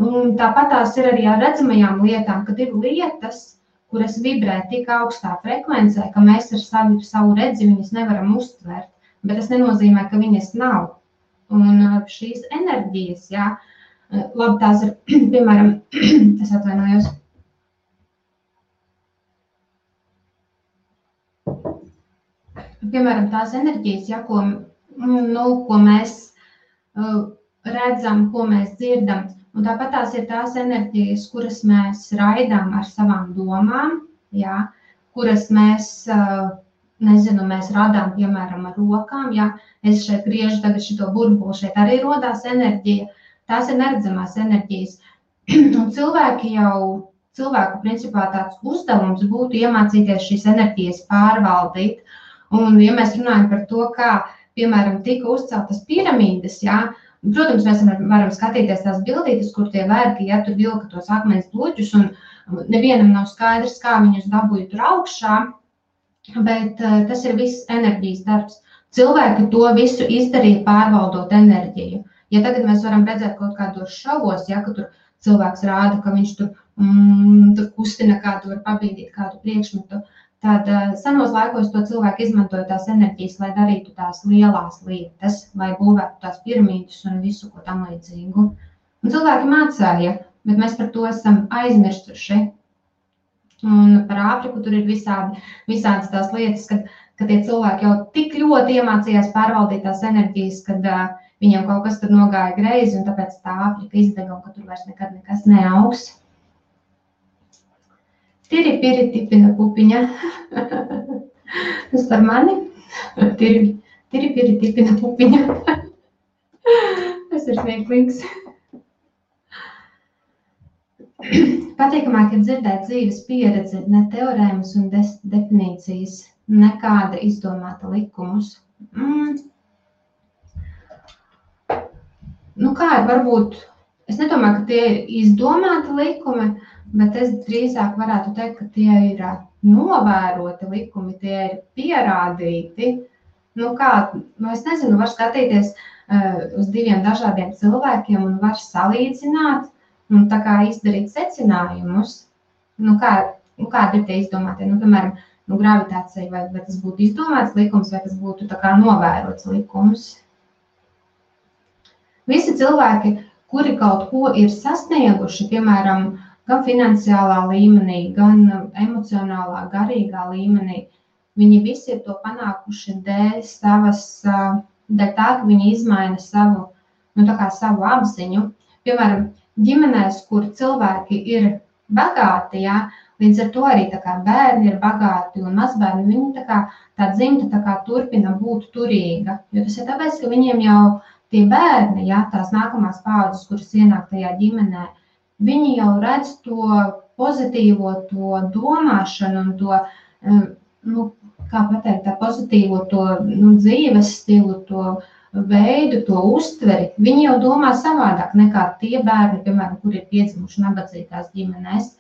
Un tāpat tās ir arī ar redzamajām lietām, kad ir lietas, kuras vibrē tik augstā frekvencē, ka mēs ar savu redzi viņas nevaram uztvert, bet tas nenozīmē, ka viņas nav. Un šīs enerģijas, jā, labi, tās ir, piemēram, es atvainojos. Piemēram, tās enerģijas, jā, ko mēs redzam, ko mēs dzirdam. Un tāpat tās ir tās enerģijas, kuras mēs raidām ar savām domām, jā, kuras mēs radām, piemēram, ar rokām, jā. Es šeit griežu tagad šito burbuli, šeit arī rodās enerģija. Tās ir neredzamās enerģijas. Un cilvēku principā tāds uzdevums būtu iemācīties šīs enerģijas pārvaldīt. Un, ja mēs runājam par to, kā, piemēram, tika uzceltas piramīdas, jā, protams, mēs varam skatīties tās bildītes, kur tie vergi, ja tur vilka tos akmens bloķus, un nevienam nav skaidrs, kā viņus dabūja tur augšā, bet tas ir viss enerģijas darbs. Cilvēki to visu izdarīja pārvaldot enerģiju. Ja tagad mēs varam redzēt kaut kādos šovos, ja, ka tur cilvēks rāda, ka viņš tur kustina kādu, var pabīdīt kādu priekšmetu, tad senos laikos to cilvēku izmantoja tās enerģijas, lai darītu tās lielās lietas, lai būvētu tās piramīdas un visu, ko tam līdzīgu. Un cilvēki mācēja, bet mēs par to esam aizmirstuši. Un par Āfriku tur ir visādas tās lietas, ka tie cilvēki jau tik ļoti iemācījās pārvaldīt tās enerģijas, kad viņiem kaut kas tur nogāja greizi, un tāpēc tā Āfrika izdega, un ka tur vairs nekad nekas neaugs. Tiri-piri tipina pupiņa. Tas par mani. Tiri-piri tipina pupiņa. Tas ir smieklīgs. Patīkamāk ir dzirdēt dzīves pieredzi, ne teorēmas un definīcijas, nekāda izdomāta likumus. Kā ir varbūt, es nedomāju, ka tie ir izdomāti likumi, bet es drīzāk varētu teikt, ka tie ir novēroti likumi, tie ir pierādīti. Es nezinu, var skatīties uz diviem dažādiem cilvēkiem un var salīdzināt un tā kā izdarīt secinājumus, kādi ir tie izdomātie, piemēram, gravitācija, vai tas būtu izdomāts likums, vai tas būtu tā kā novērots likums. Visi cilvēki, kuri kaut ko ir sasnieguši, piemēram, gan finansiālā līmenī, gan emocionālā, garīgā līmenī, viņi visi ir to panākuši dēļ tā, ka viņi izmaina savu apziņu. Piemēram, ģimenēs, kur cilvēki ir bagāti, ja, līdz ar to arī tā kā bērni ir bagāti un mazbērni, viņi tā dzimta turpina būt turīga. Jo tas ir tāpēc, ka viņiem jau tie bērni, ja, tās nākamās paaudzes, kuras ienāk tajā ģimenē, viņi jau redz to pozitīvo, to domāšanu un to, kā pateikt, tā pozitīvo to dzīves stilu, to veidu, to uztveri. Viņi jau domā savādāk nekā tie bērni, piemēram, kuri ir piedzimuši nabadzīgās ģimenēs.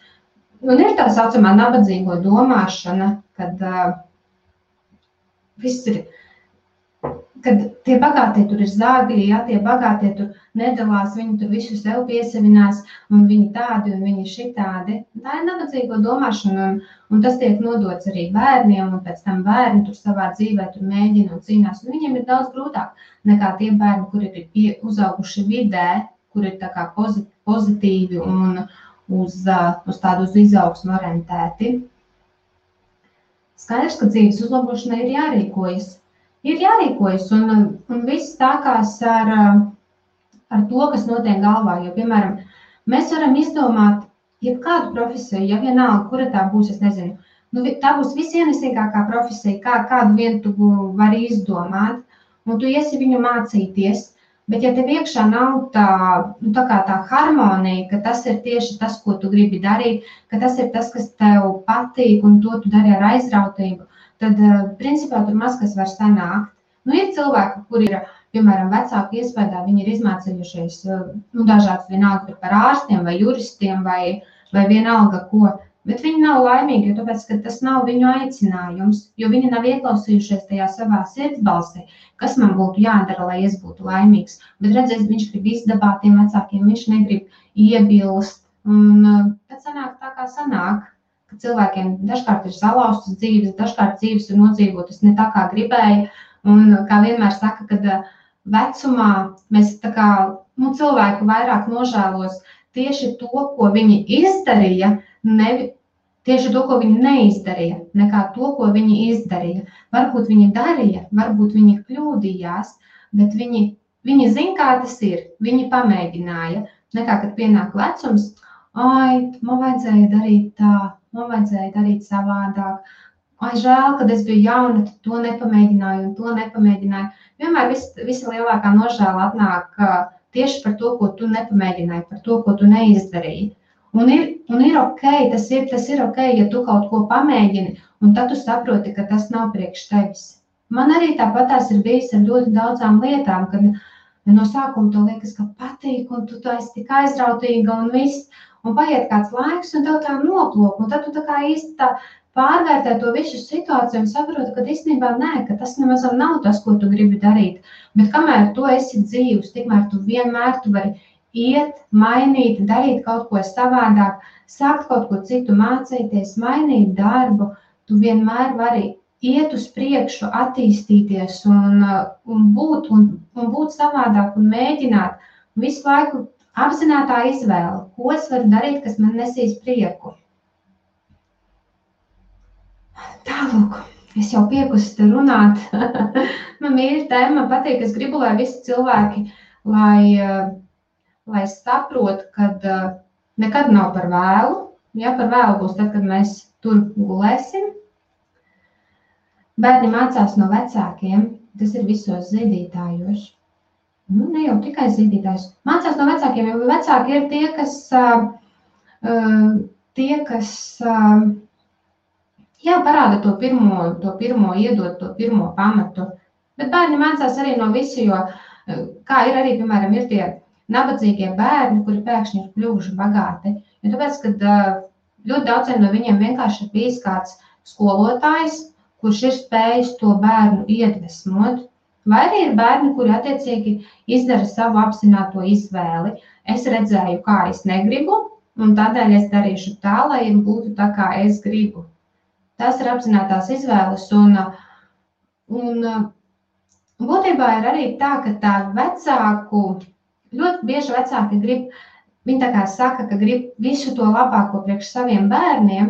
Un ir tā saucamā nabadzīgo domāšana, kad viss ir, kad tie bagātie tur ir zāgļi, ja, tie bagātie tur nedalās, viņi tur visu sev piesavinās, un viņi tādi, un viņi šitādi. Tā ir nabadzīgo domāšana, un tas tiek nodots arī bērniem, un pēc tam bērni tur savā dzīvē tur mēģina un cīnās, un viņiem ir daudz grūtāk nekā tie bērni, kuri ir uzauguši vidē, kuri ir tā kā pozitīvi un uz tādu uz izaugsmu orientēti. Skaidrs, ka dzīves uzlabošanai ir jārīkojas. Un viss sākās ar to, kas notiek galvā. Jo, piemēram, mēs varam izdomāt jebkādu profesiju, ja vienalga, kura tā būs, es nezinu. Tā būs visienesīgākā profesija, kādu vien tu vari izdomāt, un tu iesi viņu mācīties. Bet ja tev iekšā nav tā harmonija, ka tas ir tieši tas, ko tu gribi darīt, ka tas ir tas, kas tev patīk, un to tu dari ar aizrautību, tad, principā, tur maz kas var sanākt. Ir cilvēki, kuri ir, piemēram, vecāku iespējā, viņi ir izmācījušies dažādas vienalga par ārstiem vai juristiem vai vienalga ko, bet viņi nav laimīgi, jo tāpēc, ka tas nav viņu aicinājums, jo viņi nav ieklausījušies tajā savā sirdsbalsī, kas man būtu jādara, lai es būtu laimīgs. Bet redziet, viņš grib izdabāt tiem vecākiem, viņš negrib iebilst, un tad sanāk tā, kā sanāk. Cilvēkiem dažkārt ir salauztas dzīves, dažkārt dzīves ir nodzīvotas ne tā, kā gribēja. Un kā vienmēr saka, kad vecumā mēs tā kā, cilvēku vairāk nožēlos tieši to, ko viņi izdarīja, tieši to, ko viņi neizdarīja, nekā to, ko viņi izdarīja. Varbūt viņi darīja, varbūt viņi kļūdījās, bet viņi zina, kā tas ir, viņi pamēģināja. Nekā, kad pienāk vecums, man vajadzēja darīt tā, man vajadzēja darīt savādāk. Žēl, kad es biju jauna, tad to nepamēģināju un to nepamēģināju. Vienmēr visa lielākā nožēla atnāk tieši par to, ko tu nepamēģināji, par to, ko tu neizdarīji. Un ir ok, tas ir ok, ja tu kaut ko pamēģini, un tad tu saproti, ka tas nav priekš tevis. Man arī tāpatās ir bijis ar ļoti daudzām lietām, kad no sākuma to liekas, ka patīk, un tu esi tik aizrautīga un viss. Un paiet kāds laiks, un tev tā noplok, un tad tu tā kā īsti tā pārvērtē to visu situāciju un saproti, ka īstenībā nē, ka tas nemaz nav tas, ko tu gribi darīt. Bet kamēr tu esi dzīvs, tikmēr tu vienmēr vari iet, mainīt, darīt kaut ko savādāk, sākt kaut ko citu mācīties, mainīt darbu, tu vienmēr vari iet uz priekšu, attīstīties un būt savādāk un mēģināt visu laiku apzinātā izvēle, ko es varu darīt, kas man nesīs prieku. Tālūk, es jau piekusi te runāt. Man mīļa tēma, man patīk, es gribu, lai visi cilvēki, lai saprot, kad nekad nav par vēlu. Ja par vēlu būs tad, kad mēs tur gulēsim. Bērni mācās no vecākiem, tas ir visos zīdītājos. Ne jau tikai zīdītājs. Mācās no vecākiem, jo vecāki ir tie, kas parāda to pirmo, iedod to pirmo pamatu. Bet bērni mācās arī no visu, jo kā ir arī, piemēram, ir tie nabadzīgie bērni, kuri pēkšņi ir kļuvuši bagāti. Jo tāpēc, kad ļoti daudziem no viņiem vienkārši ir bijis kāds skolotājs, kurš ir spējis to bērnu iedvesmot. Vai arī ir bērni, kuri attiecīgi izdara savu apzināto izvēli. Es redzēju, kā es negribu, un tādēļ es darīšu tā, lai būtu tā, kā es gribu. Tas ir apzinātās izvēles, un būtībā ir arī tā, ka tā vecāku, ļoti bieži vecāki grib, viņi tā kā saka, ka grib visu to labāko priekš saviem bērniem,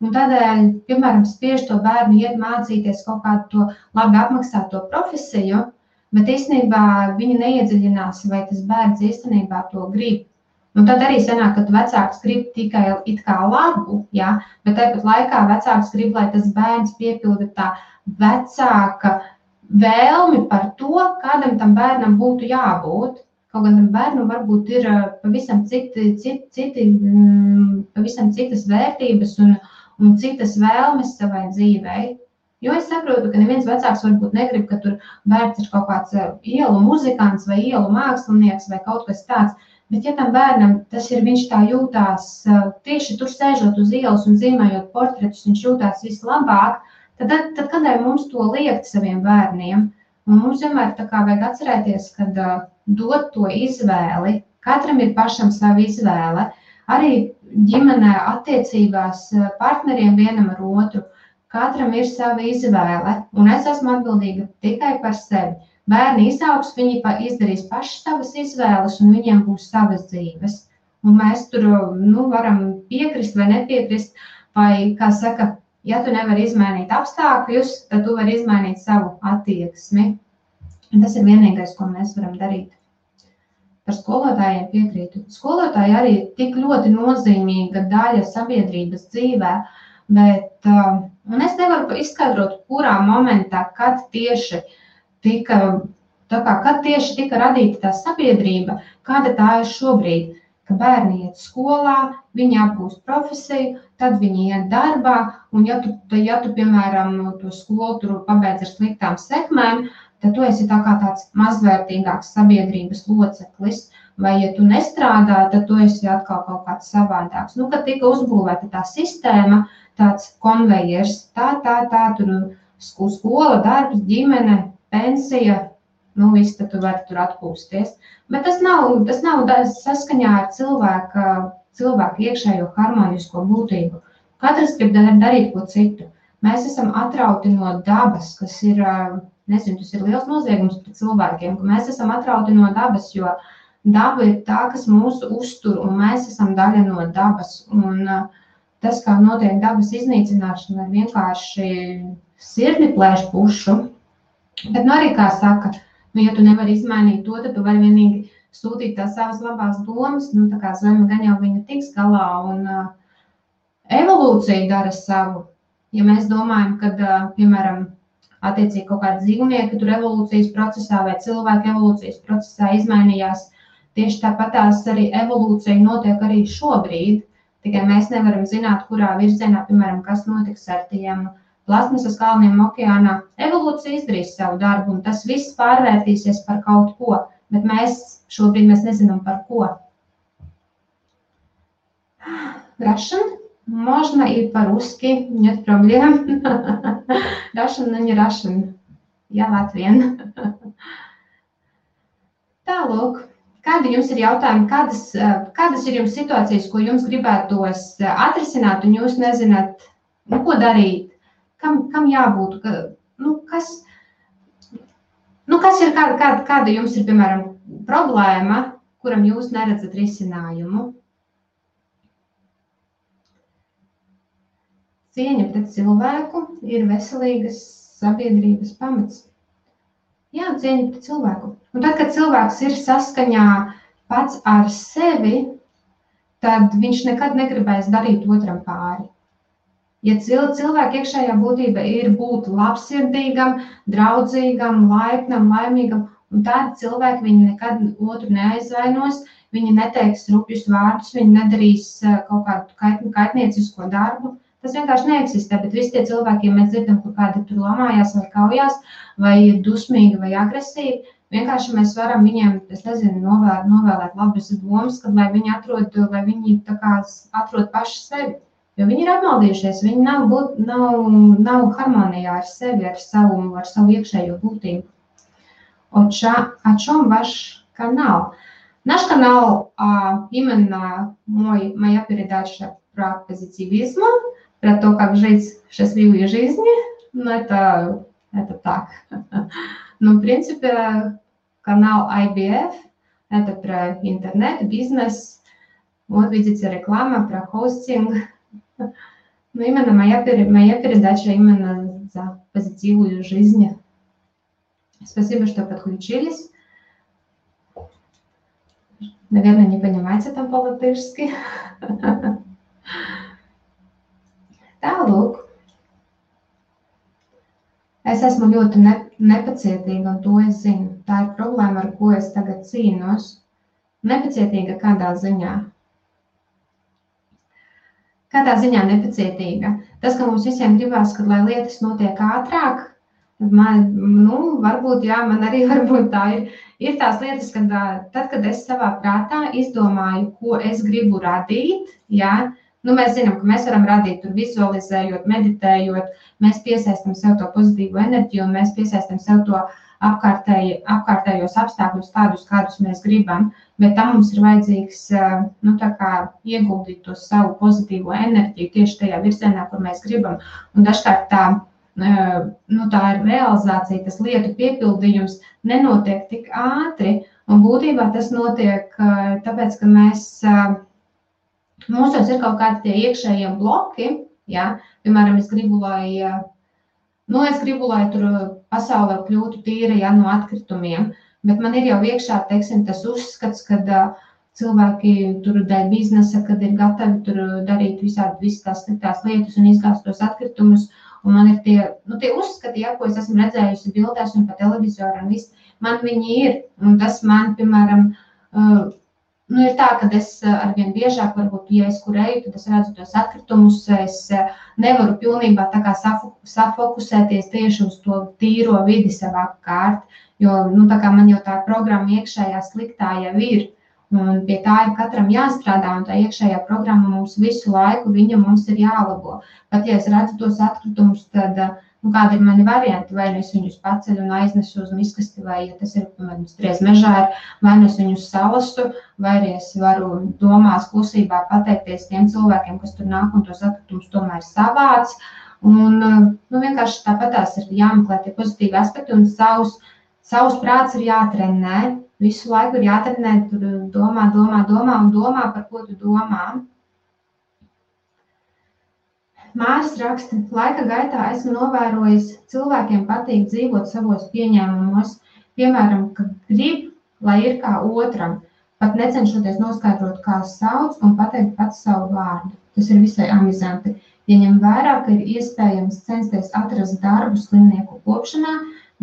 un tādēļ, piemēram, spiež to bērnu iet mācīties kaut kādu to labi apmaksāto profesiju, bet īstenībā viņi neiedziļinās, vai tas bērns īstenībā to grib. Un tad arī sanāk, ka vecāks grib tikai it kā labu, ja? Bet tāpat laikā vecāks grib, lai tas bērns piepilda tā vecāka vēlmi par to, kādam tam bērnam būtu jābūt. Kaut gan tam bērnam varbūt ir pavisam citas vērtības un citas vēlmes savai dzīvei. Jo es saprotu, ka neviens vecāks varbūt negrib, ka tur bērns ir kaut kāds ielu muzikants vai ielu mākslinieks vai kaut kas tāds. Bet ja tam bērnam tas ir, viņš tā jūtās, tieši tur sēžot uz ielas un zīmējot portretus, viņš jūtās vislabāk, tad kādēļ mums to liekt saviem bērniem? Un mums vienmēr tā kā vajag atcerēties, kad dot to izvēli, katram ir pašam sava izvēle, arī ģimenē attiecībās partneriem vienam ar otru, katram ir sava izvēle, un es esmu atbildīga tikai par sevi. Bērni izaugs, viņi izdarīs paši savas izvēles, un viņiem būs savas dzīves. Un mēs tur varam piekrist vai nepiekrist, vai, kā saka, ja tu nevari izmainīt apstākļus, tad tu vari izmainīt savu attieksmi. Un tas ir vienīgais, ko mēs varam darīt. Par skolotājiem piekrītu. Skolotāji arī ir tik ļoti nozīmīga daļa sabiedrības dzīvē, bet un es nevaru izskaidrot, kurā momentā, kad tieši tika radīta tā sabiedrība, kāda tā ir šobrīd, ka bērni iet skolā, viņi apgūst profesiju, tad viņi iet darbā, un ja tu piemēram, to skolu tur pabeidz ar sliktām sekmēm, tad tu esi tā kā tāds mazvērtīgāks sabiedrības loceklis, vai ja tu nestrādā, tad tu esi atkal kaut kāds savādāks. Kad tika uzbūvēta tā sistēma, tāds konvejers, tur skola, darbs, ģimene, pensija, viss, tad tu vari tur atpūsties. Bet tas nav saskaņā ar cilvēku iekšējo harmonisko būtību. Katrs grib darīt ko citu. Mēs esam atrauti no dabas, kas ir, nezinu, tas ir liels noziegums pret cilvēkiem, ka mēs esam atrauti no dabas, jo daba ir tā, kas mūsu uztur, un mēs esam daļa no dabas. Un tas, kā notiek dabas iznīcināšana, ir vienkārši sirdi plēš pušu. Bet arī, kā saka, ja tu nevari izmainīt to, tad tu vari vienīgi sūtīt tās savas labās domas, tā kā zeme gan jau viņa tiks galā, un evolūcija dara savu. Ja mēs domājam, kad, piemēram, attiecīgi kaut kādi dzīvnieki tur evolūcijas procesā vai cilvēki evolūcijas procesā izmainījās, tieši tāpatās arī evolūcija notiek arī šobrīd, tikai mēs nevaram zināt, kurā virzienā, piemēram, kas notiks ar tiem plasmasas kalniem okeānā. Evolūcija izdarīs savu darbu, un tas viss pārvērtīsies par kaut ko, bet šobrīd mēs nezinām par ko. Russian? Можно и по-русски, нет проблем. Russian, но не Russian. Я Latvian. Tālūk. Kādi jums ir jautājumi, kādas ir jums situācijas, ko jums gribētos atrisināt, un jūs nezināt, ko darīt? Kam jābūt, kas ir, kāda jums ir, piemēram, problēma, kuram jūs neredzat risinājumu? Cieņa pret cilvēku ir veselīgas sabiedrības pamats. Jā, cieņa pret cilvēku. Un tad, kad cilvēks ir saskaņā pats ar sevi, tad viņš nekad negribēs darīt otram pāri. Ja cilvēka iekšējā būtība ir būt labsirdīgam, draudzīgam, laipnam, laimīgam, un tādi cilvēki viņi nekad otru neaizvainos, viņi neteiks rupjus vārdus, viņi nedarīs kaut kādu kaitniecisko darbu. Tas vienkārši neeksistē, bet visi tie cilvēki, ja mēs dzirdam, kur kādi tur lamājās vai kaujās, vai ir dusmīgi vai agresīvi, vienkārši mēs varam viņiem, novēlēt labas domas, kad lai viņi atrod paši sevi. Jo viņi ir apmaldījušies, viņi nav harmonijā ar sevi, ar savu iekšējo būtību. о чем ваш канал? Наш канал именно моя передача про позитивизм, про то, как жить счастливой жизнью. Ну, это так. Но, в принципе, канал IBF – это про интернет, бизнес. Вот видите, реклама про хостинг. Но именно моя передача именно за позитивную жизнь. Спасибо, что подключились. Наверное, не понимаете там по-латышски. Tālūk. Es esmu ļoti nepacietīga, un to es zinu. Tā ir problēma, ar ko es tagad cīnos. Nepacietīga kādā ziņā? Kādā ziņā nepacietīga? Tas, ka mums visiem gribās, kad lai lietas notiek ātrāk, varbūt, jā, man arī varbūt tā ir. Ir tās lietas, kad tad, kad es savā prātā izdomāju, ko es gribu radīt, jā, mēs zinām, ka mēs varam radīt tur vizualizējot, meditējot, mēs piesaistam sev to pozitīvu enerģiju un mēs piesaistam sev to apkārtējos apstākļus tādus, kādus mēs gribam, bet tam mums ir vajadzīgs, tā kā ieguldīt to savu pozitīvo enerģiju tieši tajā virzienā, kur mēs gribam. Un dažkārt tā ir realizācija, tas lietu piepildījums nenotiek tik ātri, un būtībā tas notiek tāpēc, ka mūsos ir kaut kādi tie iekšējie bloki, jā, piemēram, es gribu, lai tur pasaulē kļūtu tīra, jā, no atkritumiem, bet man ir jau iekšā, teiksim, tas uzskats, kad cilvēki tur dēļ biznesa, kad ir gatavi tur darīt visas tās sliktās lietas un izgāzt tos atkritumus, un man ir tie uzskati, jā, ko es esmu redzējusi bildēs un pa televizoru un viss, man viņi ir, un tas man, piemēram, ir tā, ka es arvien biežāk, varbūt, ja es kur eju, tad es redzu tos atkritumus, es nevaru pilnībā tā kā safokusēties tieši uz to tīro vidi sev apkārt, jo, tā kā man jau tā programma iekšējā sliktā jau ir, un pie tā ir katram jāstrādā, un tā iekšējā programma mums visu laiku, viņa mums ir jālabo. Pat, ja es redzu tos atkritumus, tad, kādi ir mani varianti, vai es viņus paceļu un aiznesu uz miskasti, vai, ja tas ir, piemēram, striez mežā, vai es viņus salasu, vai arī es varu domās klusībā pateikties tiem cilvēkiem, kas tur nāk un tos atkritumus tomēr savāc. Un, vienkārši tāpatās ir jāmeklē tie pozitīvi aspekti, un savs prāts ir jātrenē. Visu laiku ir jātrenē, tur domā, par ko tu domā. Māris raksta, laika gaitā esmu novērojis, cilvēkiem patīk dzīvot savos pieņēmumos, piemēram, ka grib, lai ir kā otram, pat necenšoties noskaidrot, kā sauc un pateikt pats savu vārdu. Tas ir visai amizanti. Ja ņem vērā, ka ir iespējams censties atrast darbu slimnieku kopšanā,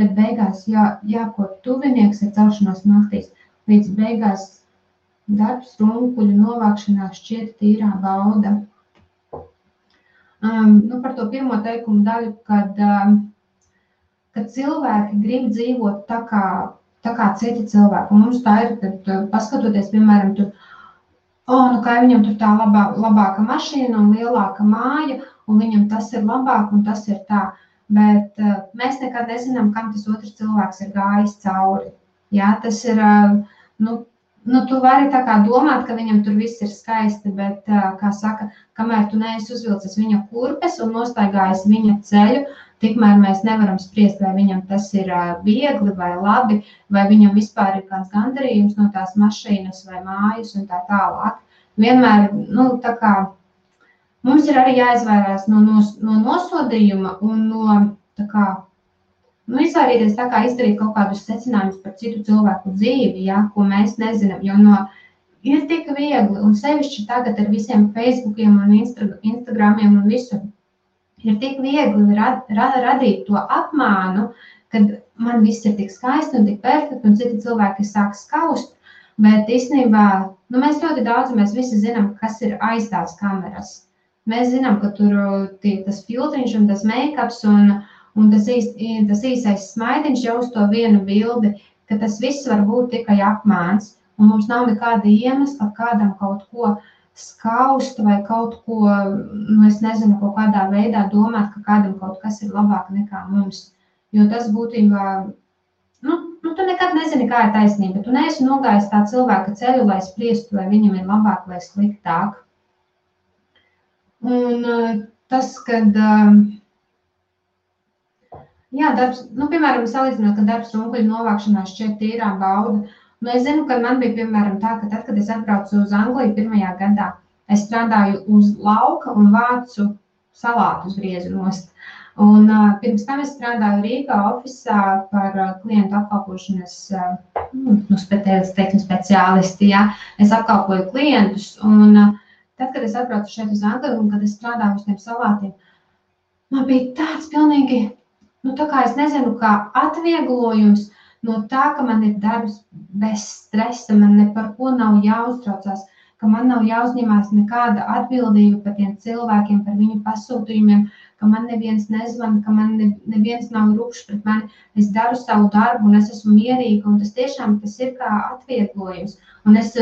bet beigās jākop tuvinieks ar celšanos naktīs. Līdz beigās darbs runkuļu novākšanā šķiet tīrā bauda. Par to pirmo teikumu daļu, kad cilvēki grib dzīvot tā kā citi cilvēki. Un mums tā ir, kad paskatoties, piemēram, tur, kā viņam tur tā labāka mašīna un lielāka māja, un viņam tas ir labāk un tas ir tā. Bet mēs nekad nezinām, kam tas otrs cilvēks ir gājis cauri. Jā, tas ir, tu vari tā kā domāt, ka viņam tur viss ir skaisti, bet, kā saka, kamēr tu neesi uzvilcis viņa kurpes un nostaigājis viņa ceļu, tikmēr mēs nevaram spriest, vai viņam tas ir viegli vai labi, vai viņam vispār ir kāds gandarījums no tās mašīnas vai mājas un tā tālāk. Vienmēr, tā kā mums ir arī jāizvairās no nosodījuma un no, izvairīties tā kā izdarīt kaut kādus secinājumus par citu cilvēku dzīvi, ja, ko mēs nezinām, jo ir tik viegli, un sevišķi tagad ar visiem Facebookiem un Instagramiem un visu, ir tik viegli radīt to apmānu, kad man viss ir tik skaisti un tik perfekti, un citi cilvēki sāk skaust, bet īstenībā, mēs ļoti daudz, mēs visi zinām, kas ir aiz tās kameras. Mēs zinām, ka tur tas filtriņš un tas make-ups un tas īsais smaidiņš jau uz to vienu bildi, ka tas viss var būt tikai apmāns, un mums nav nekāda iemesla kādam kaut ko skaust vai kaut ko, es nezinu, kaut kādā veidā domāt, ka kādam kaut kas ir labāk nekā mums. Jo tas būtībā tu nekad nezini, kā ir taisnība. Tu neesi nogājis tā cilvēka ceļu, lai spriestu, vai viņam ir labāk vai sliktāk. Un tas, kad, darbs, piemēram, salīdzinot, ka darbs runkuļu novākšanā šķiet tīrā bauda. Es zinu, ka man bija, piemēram, tā, ka tad, kad es atbraucu uz Angliju pirmajā gadā, es strādāju uz lauka un vācu salātus griezu nost. Un pirms tam es strādāju Rīgā ofisā par klientu apkalpošanas speciālisti. Ja? Es apkalpoju klientus, un tad, kad es atbraucu šeit uz Angliju un kad es strādāju uz tiem salātiem, man bija tāds pilnīgi, tā kā es nezinu, kā atvieglojums no tā, ka man ir darbs bez stresa, man ne par ko nav jāuztraucās, ka man nav jāuzņemās nekāda atbildība par tiem cilvēkiem, par viņu pasūtījumiem, ka man neviens nezvana, ka man neviens nav rupšs pret mani. Es daru savu darbu un es esmu mierīga, un tas tiešām tas ir kā atvieglojums. Un es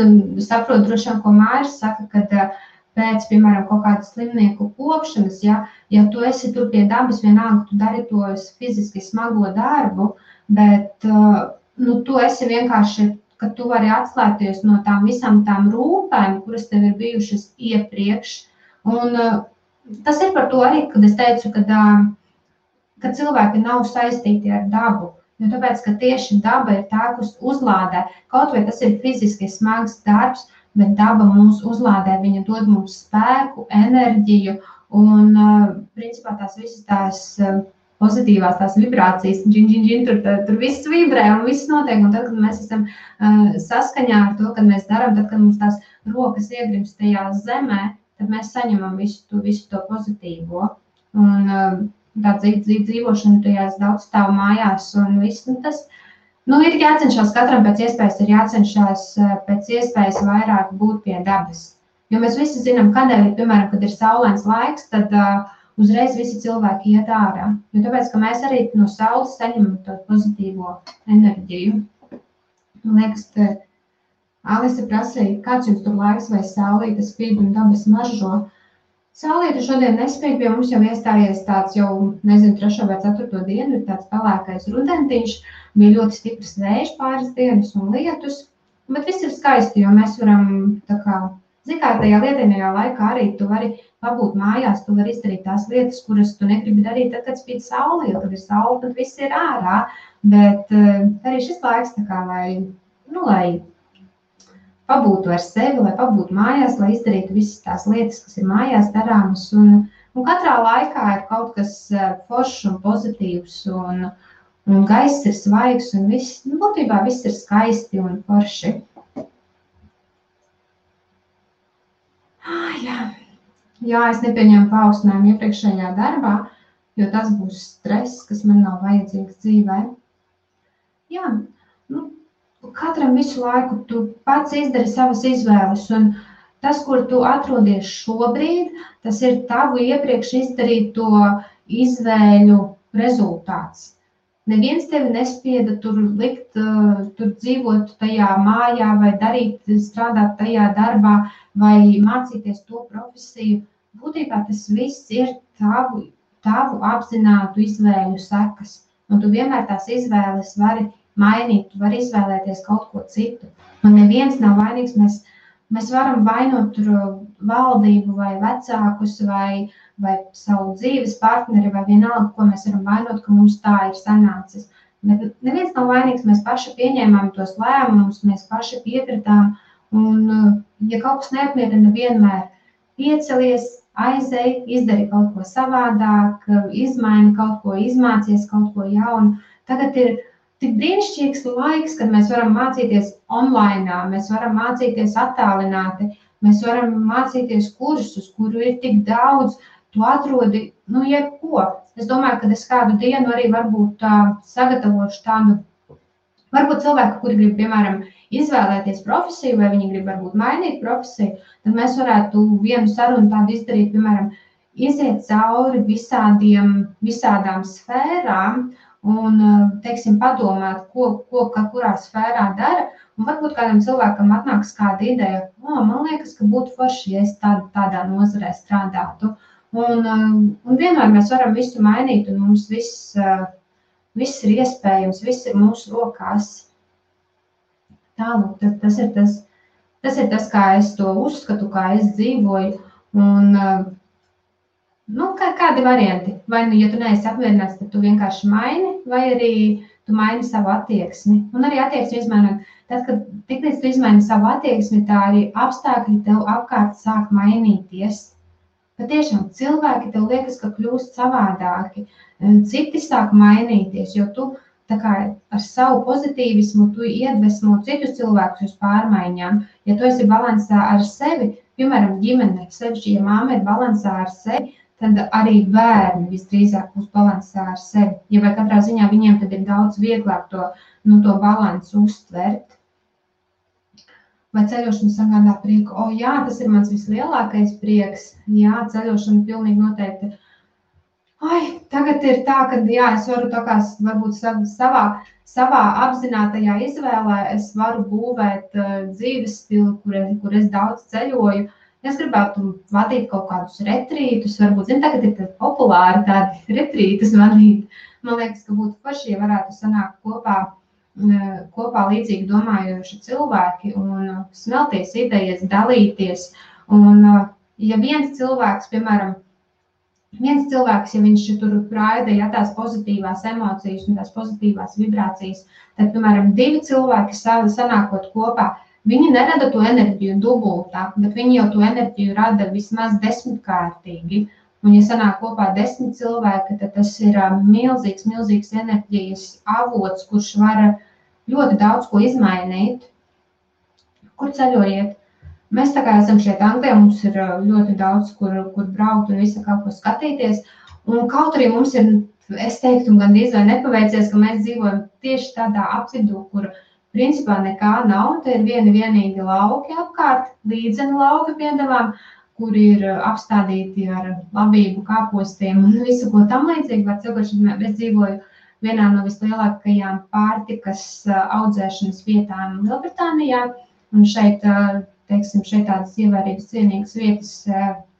saprotu droši vien, ko Māris saka, kad pēc, piemēram, kaut kādas slimnieku kopšanas, ja tu esi tur pie dabas, vienalga, tu dari to fiziski smago darbu, bet tu esi vienkārši, ka tu vari atslēgties no tām visām tām rūpēm, kuras tev ir bijušas iepriekš. Un tas ir par to arī, kad es teicu, ka cilvēki nav saistīti ar dabu. Jo tāpēc, ka tieši daba ir tā, kas uzlādē. Kaut vai tas ir fiziski smags darbs, bet daba mūs uzlādē, viņa dod mums spēku, enerģiju un, principā, tās visas tās pozitīvās tās vibrācijas, tur viss vibrē un viss notiek. Un tad, kad mēs esam saskaņā ar to, kad mēs darām, tad, kad mums tās rokas iegrimst tajā zemē, tad mēs saņemam visu to pozitīvo. Un tā dzīvošana tajās daudzstāvu mājās un viss, tas, ir jācenšas katram pēc iespējas, ir jācenšas pēc iespējas vairāk būt pie dabas. Jo mēs visi zinām, kādēļ, piemēram, kad ir saulains laiks, tad uzreiz visi cilvēki iet ārā. Jo tāpēc, ka mēs arī no saules saņemam to pozitīvo enerģiju. Man liekas, ka Alise prasīja, kāds jums tur laiks vai saulīte spīd un dabas maržo. Saulīte šodien nespīd, pie mums jau iestājies tāds jau, 3. vai 4. dienu, ir tāds pelēkais rudentiņš, bija ļoti stiprs vējš pāris dienas un lietus, bet viss ir skaisti, jo mēs varam tā kā, tajā lietainajā laikā arī tu vari pabūt mājās, tu vari izdarīt tās lietas, kuras tu negribi darīt tad, kad spīd saule, jo kad ir saule, tad viss ir ārā, bet arī šis laiks tā kā, lai pabūtu ar sevi, lai pabūtu mājās, lai izdarītu visas tās lietas, kas ir mājās darāmas. Un katrā laikā ir kaut kas foršs un pozitīvs, un gaiss ir svaigs, un viss, būtībā viss ir skaisti un forši. Jā, es nepieņemu paaugstinājumu iepriekšējā darbā, jo tas būs stress, kas man nav vajadzīgs dzīvē. Jā, katram visu laiku tu pats izdari savas izvēles, un tas, kur tu atrodies šobrīd, tas ir tavu iepriekš izdarīto izvēļu rezultāts. Neviens tevi nespieda tur likt, tur dzīvot tajā mājā vai strādāt tajā darbā vai mācīties to profesiju. Būtībā tas viss ir tavu apzinātu izvēļu sekas, un tu vienmēr tās izvēles vari mainīt, tu vari izvēlēties kaut ko citu. Un neviens nav vainīgs, mēs varam vainot valdību vai vecākus vai savu dzīves partneri vai vienalga, ko mēs varam vainot, ka mums tā ir sanācis. Bet neviens nav vainīgs, mēs paši pieņēmām tos lēmumus, mēs paši piekritām, un ja kaut kas neapmierina, vienmēr piecelies, aizej, izdari kaut ko savādāk, izmaini kaut ko, izmācies kaut ko jaunu. Tagad ir tik brīnišķīgs laiks, kad mēs varam mācīties online, mēs varam mācīties attālināti, mēs varam mācīties kursus, kuru ir tik daudz, tu atrodi, jebko. Es domāju, ka es kādu dienu arī varbūt sagatavošu tādu, varbūt cilvēku, kuri grib, piemēram, izvēlēties profesiju, vai viņi grib varbūt mainīt profesiju, tad mēs varētu vienu sarunu tādu izdarīt, piemēram, iziet cauri visādām sfērām, un, teiksim, padomāt, ko kurā sfērā dara, un varbūt kādam cilvēkam atnāks kāda ideja, man liekas, ka būtu forši, ja es tādā nozarē strādātu. Un vienmēr mēs varam visu mainīt, un mums viss viss ir iespējams, viss ir mūsu rokās. Tālāk, tas ir tas, kā es to uzskatu, kā es dzīvoju, un kādi varianti. Vai, ja tu neesi apmierināts, tad tu vienkārši maini, vai arī tu maini savu attieksmi. Un arī attieksmi izmainot. Tad, kad tiklīdz tu izmaini savu attieksmi, tā arī apstākļi tev apkārt sāk mainīties. Patiešām cilvēki tev liekas, ka kļūst savādāki. Citi sāk mainīties, jo tu tā kā ar savu pozitīvismu tu iedvesmo citus cilvēkus uz pārmaiņām. Ja tu esi balansā ar sevi, piemēram, ģimene, sevišķi, ja māma ir balansā ar sevi, tad arī bērni visdrīzāk būs balansā ar sevi. Ja vai katrā ziņā viņiem tad ir daudz vieglāk to balansu uztvert. Vai ceļošana sagādā prieku? Jā, tas ir mans vislielākais prieks. Jā, ceļošana pilnīgi noteikti. Tagad ir tā, ka jā, es varu tā kā varbūt savā apzinātajā izvēlē, es varu būvēt dzīves stilu, kur es daudz ceļoju. Es gribētu vadīt kaut kādus retrītus, varbūt, tagad ir populāri tādi retrītus vadīt. Man liekas, ka būtu forši, ja varētu sanākt kopā līdzīgi domājoši cilvēki un smelties idejas, dalīties. Un ja viens cilvēks, piemēram, ja viņš tur raida tās pozitīvās emocijas un tās pozitīvās vibrācijas, tad, piemēram, 2 cilvēki sanākot kopā, viņi nerada to enerģiju dubultā, bet viņi jau to enerģiju rada vismaz 10-kārtīgi. Un, ja sanāk kopā 10 cilvēki, tad tas ir milzīgs enerģijas avots, kurš var ļoti daudz ko izmainīt. Kur ceļojiet? Mēs tā kā esam šeit Anglijā, mums ir ļoti daudz, kur braukt un visu kaut ko skatīties. Un kaut arī mums ir, es teiktu, gandrīz vai nepaveicies, ka mēs dzīvojam tieši tādā apvidū, kur principā nekā nav, te ir vienīgi lauki apkārt, līdzeni lauki piedāvām, kur ir apstādīti ar labību kāpostiem un visu ko tam līdzīgi. Es dzīvoju vienā no vislielākajām pārtikas audzēšanas vietām Lielbritānijā, un šeit tādas ievērības cienīgas vietas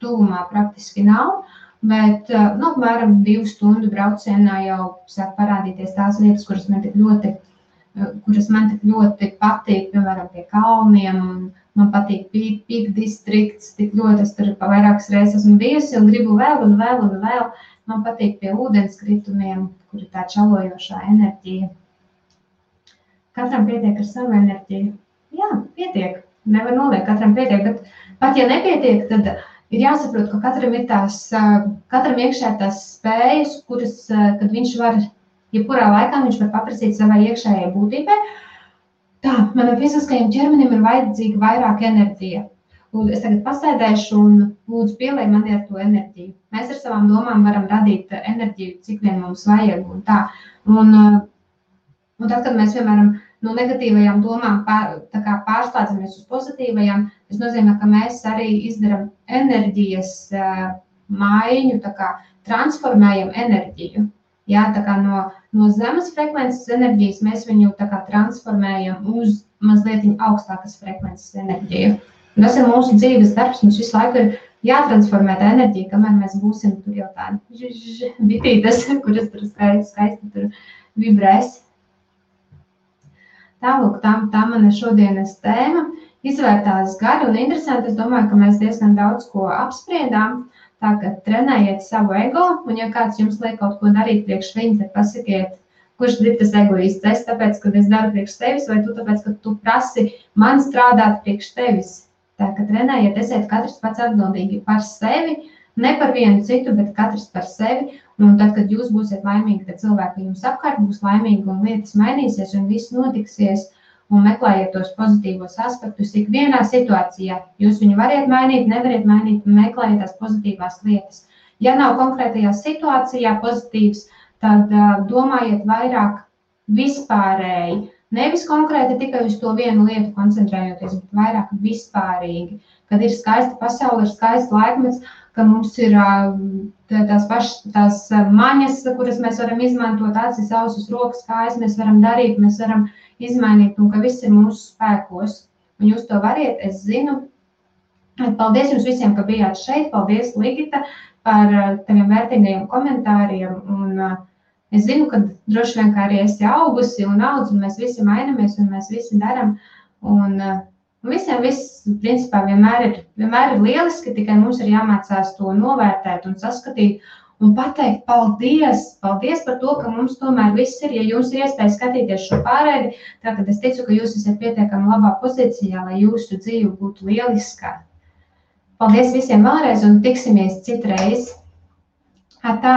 tuvumā praktiski nav, bet apmēram 2 stundu braucienā jau sāk parādīties tās vietas, kuras man tik ļoti patīk, piemēram, pie kalniem, un man patīk Peak Districts, tik ļoti es tur vairākas reizes esmu bijusi un gribu vēl un vēl un vēl. Man patīk pie ūdenskritumiem, kur ir tā čalojošā enerģija. Katram pietiek ar savu enerģiju. Jā, pietiek, nevar noliekt, katram pietiek, bet pat ja nepietiek, tad ir jāsaprot, ka katram iekšē tās spējas, kuras, kad viņš var, jebkurā laikā viņš var paprasīt savai iekšējai būtībai. Tā, manam fiziskajam ķermenim ir vajadzīga vairāk enerģija. Es tagad pasēdēšu un lūdzu pielej mani ar to enerģiju. Mēs ar savām domām varam radīt enerģiju, cik vien mums vajag un tā. Un tad, kad mēs, piemēram, no negatīvajām domām pārslēdzamies uz pozitīvajām, tas nozīmē, ka mēs arī izdaram enerģijas maiņu, transformējam enerģiju. Jā, no zemes frekvences enerģijas mēs viņu transformējam uz mazliet augstākas frekvences enerģiju. Un tas ir mūsu dzīves darbs, mums visu laiku ir jātransformē tā enerģija, kamēr mēs būsim tur jau tādi bitītes, kuras tur skaisti tur vibrēs. Tālūk, tā mana šodienas tēma izvērtās gari un interesanti. Es domāju, ka mēs diezgan daudz ko apspriedām. Tā, ka trenējiet savu ego, un ja kāds jums liek kaut ko darīt priekš viņu, tad pasakiet, kurš ir tas egoists. Es tāpēc, ka es daru priekš tevis, vai tu tāpēc, ka tu prasi man strādāt priekš tevis. Tā, ka trenējiet, esiet katrs pats atbildīgi par sevi, ne par vienu citu, bet katrs par sevi. Un tad, kad jūs būsiet laimīgi, tad cilvēki jums apkārt būs laimīgi un lietas mainīsies un viss notiksies. Un meklējiet tos pozitīvos aspektus ikvienā situācijā. Jūs viņu variet mainīt, nevariet mainīt, un meklējiet tās pozitīvās lietas. Ja nav konkrētajā situācijā pozitīvs, tad domājiet vairāk vispārēji. Nevis konkrēti tikai uz to vienu lietu koncentrējoties, bet vairāk vispārīgi. Kad ir skaista pasaule, ir skaists laikmets, ka mums ir tās maņas, kuras mēs varam izmantot, acis, ausis, rokas, kājas, mēs varam darīt, mēs varam izmainīt, un ka viss ir mūsu spēkos. Un jūs to variet, es zinu. Paldies jums visiem, ka bijāt šeit. Paldies, Ligita, par taviem vērtīgajiem komentāriem. Un Es zinu, ka droši vien, kā arī esi augusi un audz, un mēs visi mainamies, un mēs visi daram. Un visiem viss, principā, vienmēr ir lieliski, tikai mums ir jāmācās to novērtēt un saskatīt un pateikt paldies par to, ka mums tomēr viss ir. Ja jums ir iespēja skatīties šo pārēdi, tā kad es ticu, ka jūs esat pietiekami labā pozīcijā, lai jūsu dzīve būtu lieliskā. Paldies visiem vēlreiz un tiksimies citreiz. Tā!